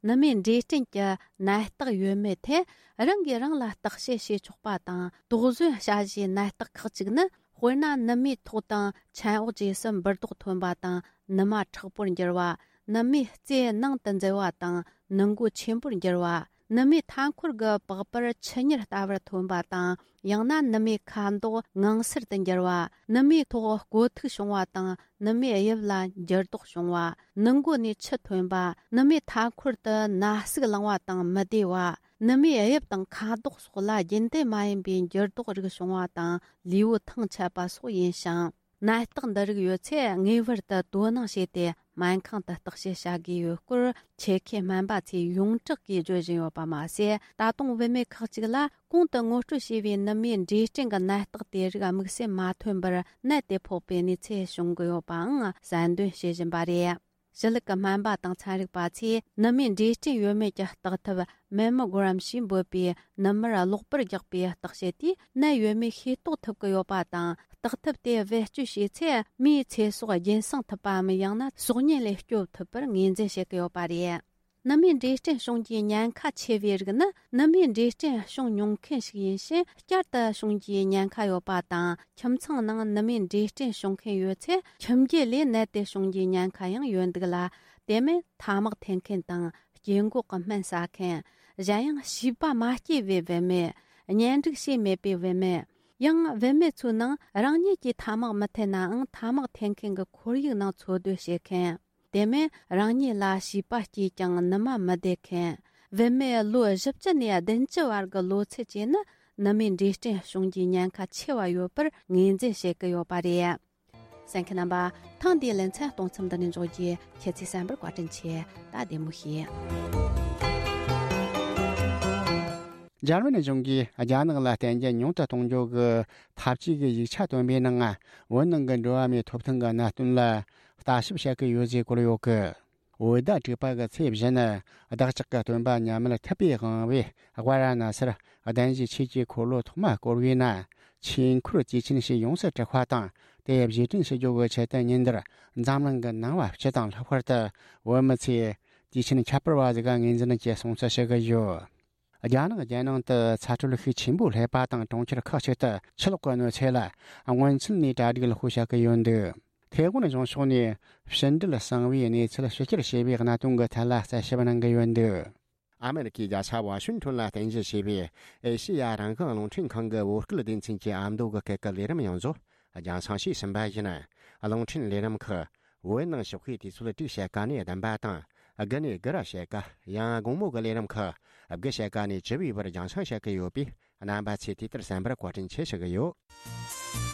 ནུ་མའི་འབྲས་སྐྲན་གྱི་ནད་རྟགས་ཡོད་མེད་ཐད་རང་གིས་རང་ལ་བརྟག་དཔྱད་བྱེད་ཆོག་པ་དང་། དོགས་ཟོན་བྱ་གཞིའི་ནད་རྟགས་ཁག་ཅིག་ནི། དཔེར་ན། ནུ་མའི་ཐོག་དང་མཆན་འོག་བཅས་སུ་འབུར་རྡོག་ཐོན་པ་དང་། ནུ་མ་མཁྲེགས་པོར་འགྱུར་བ། ནུ་མའི་རྩེ་ནང་དུ་འཛུལ་བ་དང་། ནུ་མགོ་ཆེན་པོར་འགྱུར་བ། ནུ་མའི་མཐའ་འཁོར་གྱི་པགས་པར་ཆུ་གཉེར་ལྟ་བུར་ཐོན་པ་དང་། ཡང་ན་ནུ་མའི་ཁ་མདོག་ངང་སེར་དུ་འགྱུར་བ། ནུ་མའི་ཐོག་བསྐོ་ཐིག་བྱུང་བ་དང་། ནུ་མའི་དབྱིབས་ལ་འགྱུར་ལྡོག་བྱུང་བ། ནུ་མགོ་ནས་ཆུ་ཐོན་པ། ནུ་མའི་མཐའ་འཁོར་དུ་ན་ཟུག་ལངས་པ་དང་མི་བདེ་བ། ནུ་མའི་དབྱིབས་དང་ཁ་དོག་སོགས་ལ་རྒྱུན་ལྡན་མ་ཡིན་པའི་འགྱུར་ལྡོག་རིགས་བྱུང་བ་དང་། ལུས་པོ་ཐང་ཆད་པ་སོགས་ཡིན་ཞིང་། ནད་རྟགས་འདི་རིགས་ཡོད་ཚེ་ངེས་པར་དུ་དོ་སྣང་བྱས་ཏེ་སྨན་ཁང་དུ་བརྟག་དཔྱད་བྱ་དགོས་ཡོད་སྐོར་ཆེད་མཁས་སྨན་པ་ཚོས་ཡོངས་གྲགས་ཀྱིས་བརྗོད་བཞིན་ཡོད་པ་མ་ཟད། ད་དུང་བུད་མེད་ཁག་ཅིག་ལ་གོང་དུ་ངོ་སྤྲོད་བྱས་པའི་ནུ་མའི་འབྲས་སྐྲན་གྱི་ནད་རྟགས་དེ་རིགས་དམིགས་བསལ་མ་ཐོན་པར་ནད་དེ་ཕོག་པའི་གནས་ཚུལ་བྱུང་གི་ཡོད་པའང་གསལ་འདོན་བྱེད་བཞིན་པ་རེད། ཞི་ལུགས་ཀྱི་སྨན་པ་དང་ཚན་རིག་པ་ཚོས་ནུ་མའི་འབྲས་སྐྲན་ཡོད་མེད་ཀྱི་བརྟག་ཐབས་Mammogram ཞེས་འབོད་པའི་ནུ་མར་གློག་པར་རྒྱག་པའི་བརྟག་དཔྱད་དེས་ནད་ཡོད་མེད་ཤེས་རྟོགས་ཐུབ་ཀྱི་ཡོད་པ་དང་། བརྟག་ཐབས་དེ་བེད་སྤྱོད་བྱས་ཚེ་མིའི་ཚེ་སྲོག་རྒྱུན་སྲུང་ཐུབ་པའམ། ཡང་ན་སྲོག་ཉེན་ལས་སྐྱོབ་ཐུབ་པར་ངོས་འཛིན་བྱེད་ཀྱི་ཡོད་པ་རེད། ནུ་མའི་འབྲས་སྐྲན་བྱུང་རྒྱུའི་ཉེན་ཁ་ཆེ་བའི་རིགས་ནི། ནུ་མའི་འབྲས་སྐྲན་བྱུང་མྱོང་མཁན་ཞིག་ཡིན་ཕྱིན། བསྐྱར་དུ་བྱུང་རྒྱུའི་ཉེན་ཁ་ཡོད་པ་དང་། ཁྱིམ་ཚང་ནང་ནུ་མའི་འབྲས་སྐྲན་བྱུང་མཁན་ཡོད་ཚེ། ཁྱིམ་རྒྱུད་ལས་ནད་དེ་བྱུང་རྒྱུའི་ཉེན་ཁ་ཡང་ཡོད་འདུག་ལ། དེ་མིན་ཐ་མག་འཐེན་མཁན་དང་། སྐྱེ་འགོག་གི་སྨན་ཟ་མཁན། གཞན་ཡང་བྱིས་པ་མ་སྐྱེས་པའི་བུད་མེད། གཉེན་སྒྲིག་བྱས་མེད་པའི་བུད་མེད། ཡང་བུད་མེད་ཚོའི་ནང་རང་ཉིད་ཀྱིས་ཐ་མག་མི་འཐེན་ནའང་ཐ་མག་འཐེན་མཁན་གྱི་ཁོར་ཡུག་ནང་འཚོ་སྡོད་བྱེད་མཁན། དེ་མིན་རང་ཉིད་ལ་བྱིས་པ་སྐྱེས་ཀྱང་ནུ་མ་མི་བདེ་མཁན། བུད་མེད་ལོ་བཞི་བཅུ་ནས་བདུན་ཅུ་བར་གྱི་ལོ་ཚད་བཅས་ནི་ནུ་མའི་འབྲས་སྐྲན་བྱུང་རྒྱུའི་ཉེན་ཁ་ཆེ་བ་ཡོད་པར་ངོས་འཛིན་བྱེད་ཀྱི་ཡོད་པ་རེད། གསན་མཁན་རྣམ་པ། ཐེངས་འདིའི་ལེ་ཚན་གཏོང་མཚམས་འདི་ནས་འཇོག་རྒྱུ། ཁྱེད་ཚོས་གསན་པར་བཀའ་དྲིན་ཆེ། ད་བདེ་མོ་བྱོས། འཇར་མན་གཞུང་གིས་རྒྱ་ནག་ལ་བརྟེན་རྒྱུ་ཉུང་དུ་གཏོང་རྒྱུ་གི་འཐབ་ཇུས་ཀྱི་ཡིག་ཆ་བཏོན་པའི་ནང་། བོད་ནང་གི་འགྲོ་བ་མིའི་ཐོབ་ཐང་གི་གནད་དོན་ལ་ལྟ་ཞིབ་བྱེད་ཀྱི་ཡོད་ཅེས་བཀོད་ཡོད་གི། བོད་ཟླ་དྲུག་པ་གི་ཚེས་བཞི་ནི་བདག་ཅག་གི་སྟོན་པ་མཉམ་མེད་ཐུབ་པའི་དབང་པོས་དབའ་ར་ན་སིར་གདན་ཞུའི་ཆོས་ཀྱི་འཁོར་ལོ་ཐོག་མ་བསྐོར་བའི་ནང་། ཆོས་འཁོར་དུས་ཆེན་ཞེས་ཡོངས་སུ་གྲགས་པ་དང་། དེ་རྗེས་དྲན་ཞུ་རྒྱུ་གི་ཆེད་དུ་ཉིན་འདིར་འཛམ་གླིང་གི་ནང་པ་སྤྱི་དང་། ལྷག་པར་དུ་བོད་མི་ཚོས་དུས་ཆེན་ཁྱད་པར་བ་ཞིག་ངོས་འཛིན་གྱིས་སྲུང་བརྩི་ཞུ་གི་ཡོད། རྒྱ་ནག་རྒྱལ་ནང་དུ་ཚ་དྲོད་ཤུགས་ཆེན་པོས་སླེབས་པ་དང་། གྲོང་ཁྱེར་ཁག་ཅིག་ཏུ་ཆུ་ལོག་གི་གནོད་འཚེ་ལ་སྔོན་ཚུད་ནས་གྲ་སྒྲིག་ལྷོད་བྱེད་ཀྱི་ཡོད་འདུག་ཐའེ་ཝན་གཞུང་ཕྱོགས་ནས་ཕྱི་འབྲེལ་གསང་བའི་གནས་ཚུལ་ཕྱི་བསྐྱར་བྱས་པའི་གནད་དོན་གྱི་ཐད་ལ་གསལ་ཞིབ་གནང་གི་ཡོད་འདུག་ཨ་མེ་རི་ཁའི་རྒྱལ་ས་ཝ་ཤིང་ཊོན་ལ་རྟེན་གཞི་བྱས་པའི་ཨེ་ཤེ་ཡ་རང་དབང་རླུང་འཕྲིན་ཁང་གི་བོད་སྐད་སྡེ་ཚན་གྱི་ཨ་མདོ་གི་སྐད་ཀྱི་ལས་རིམ་ཡོངས་རྫོགས་རྒྱང་སྲིང་བྱས་ཟིན་པ་ཡིན། རླུང་འཕྲིན་ལས་རིམ་ཁག་བོད་ནང་ཞོགས་ཀའི་དུས་ཚོད་དྲུག་ཕྱེད་ཀ་ནས་བདུན་པ་དང་། དགུ་ནས་དགུ་ར་ཕྱེད་ཀ། ཡང་དགོང་མོ་གི་ལས་རིམ་ཁག་དགུ་ཕྱེད་ཀ་ནས་བཅུ་པའི་བར་རྒྱང་སྲིང་བྱེད་ཀྱི་ཡོད་པས། རྣམ་པ་ཚོས་དེ་ལྟར་གསན་པར་བཀའ་དྲིན་ཆེ་ཞུ་གི་ཡོད།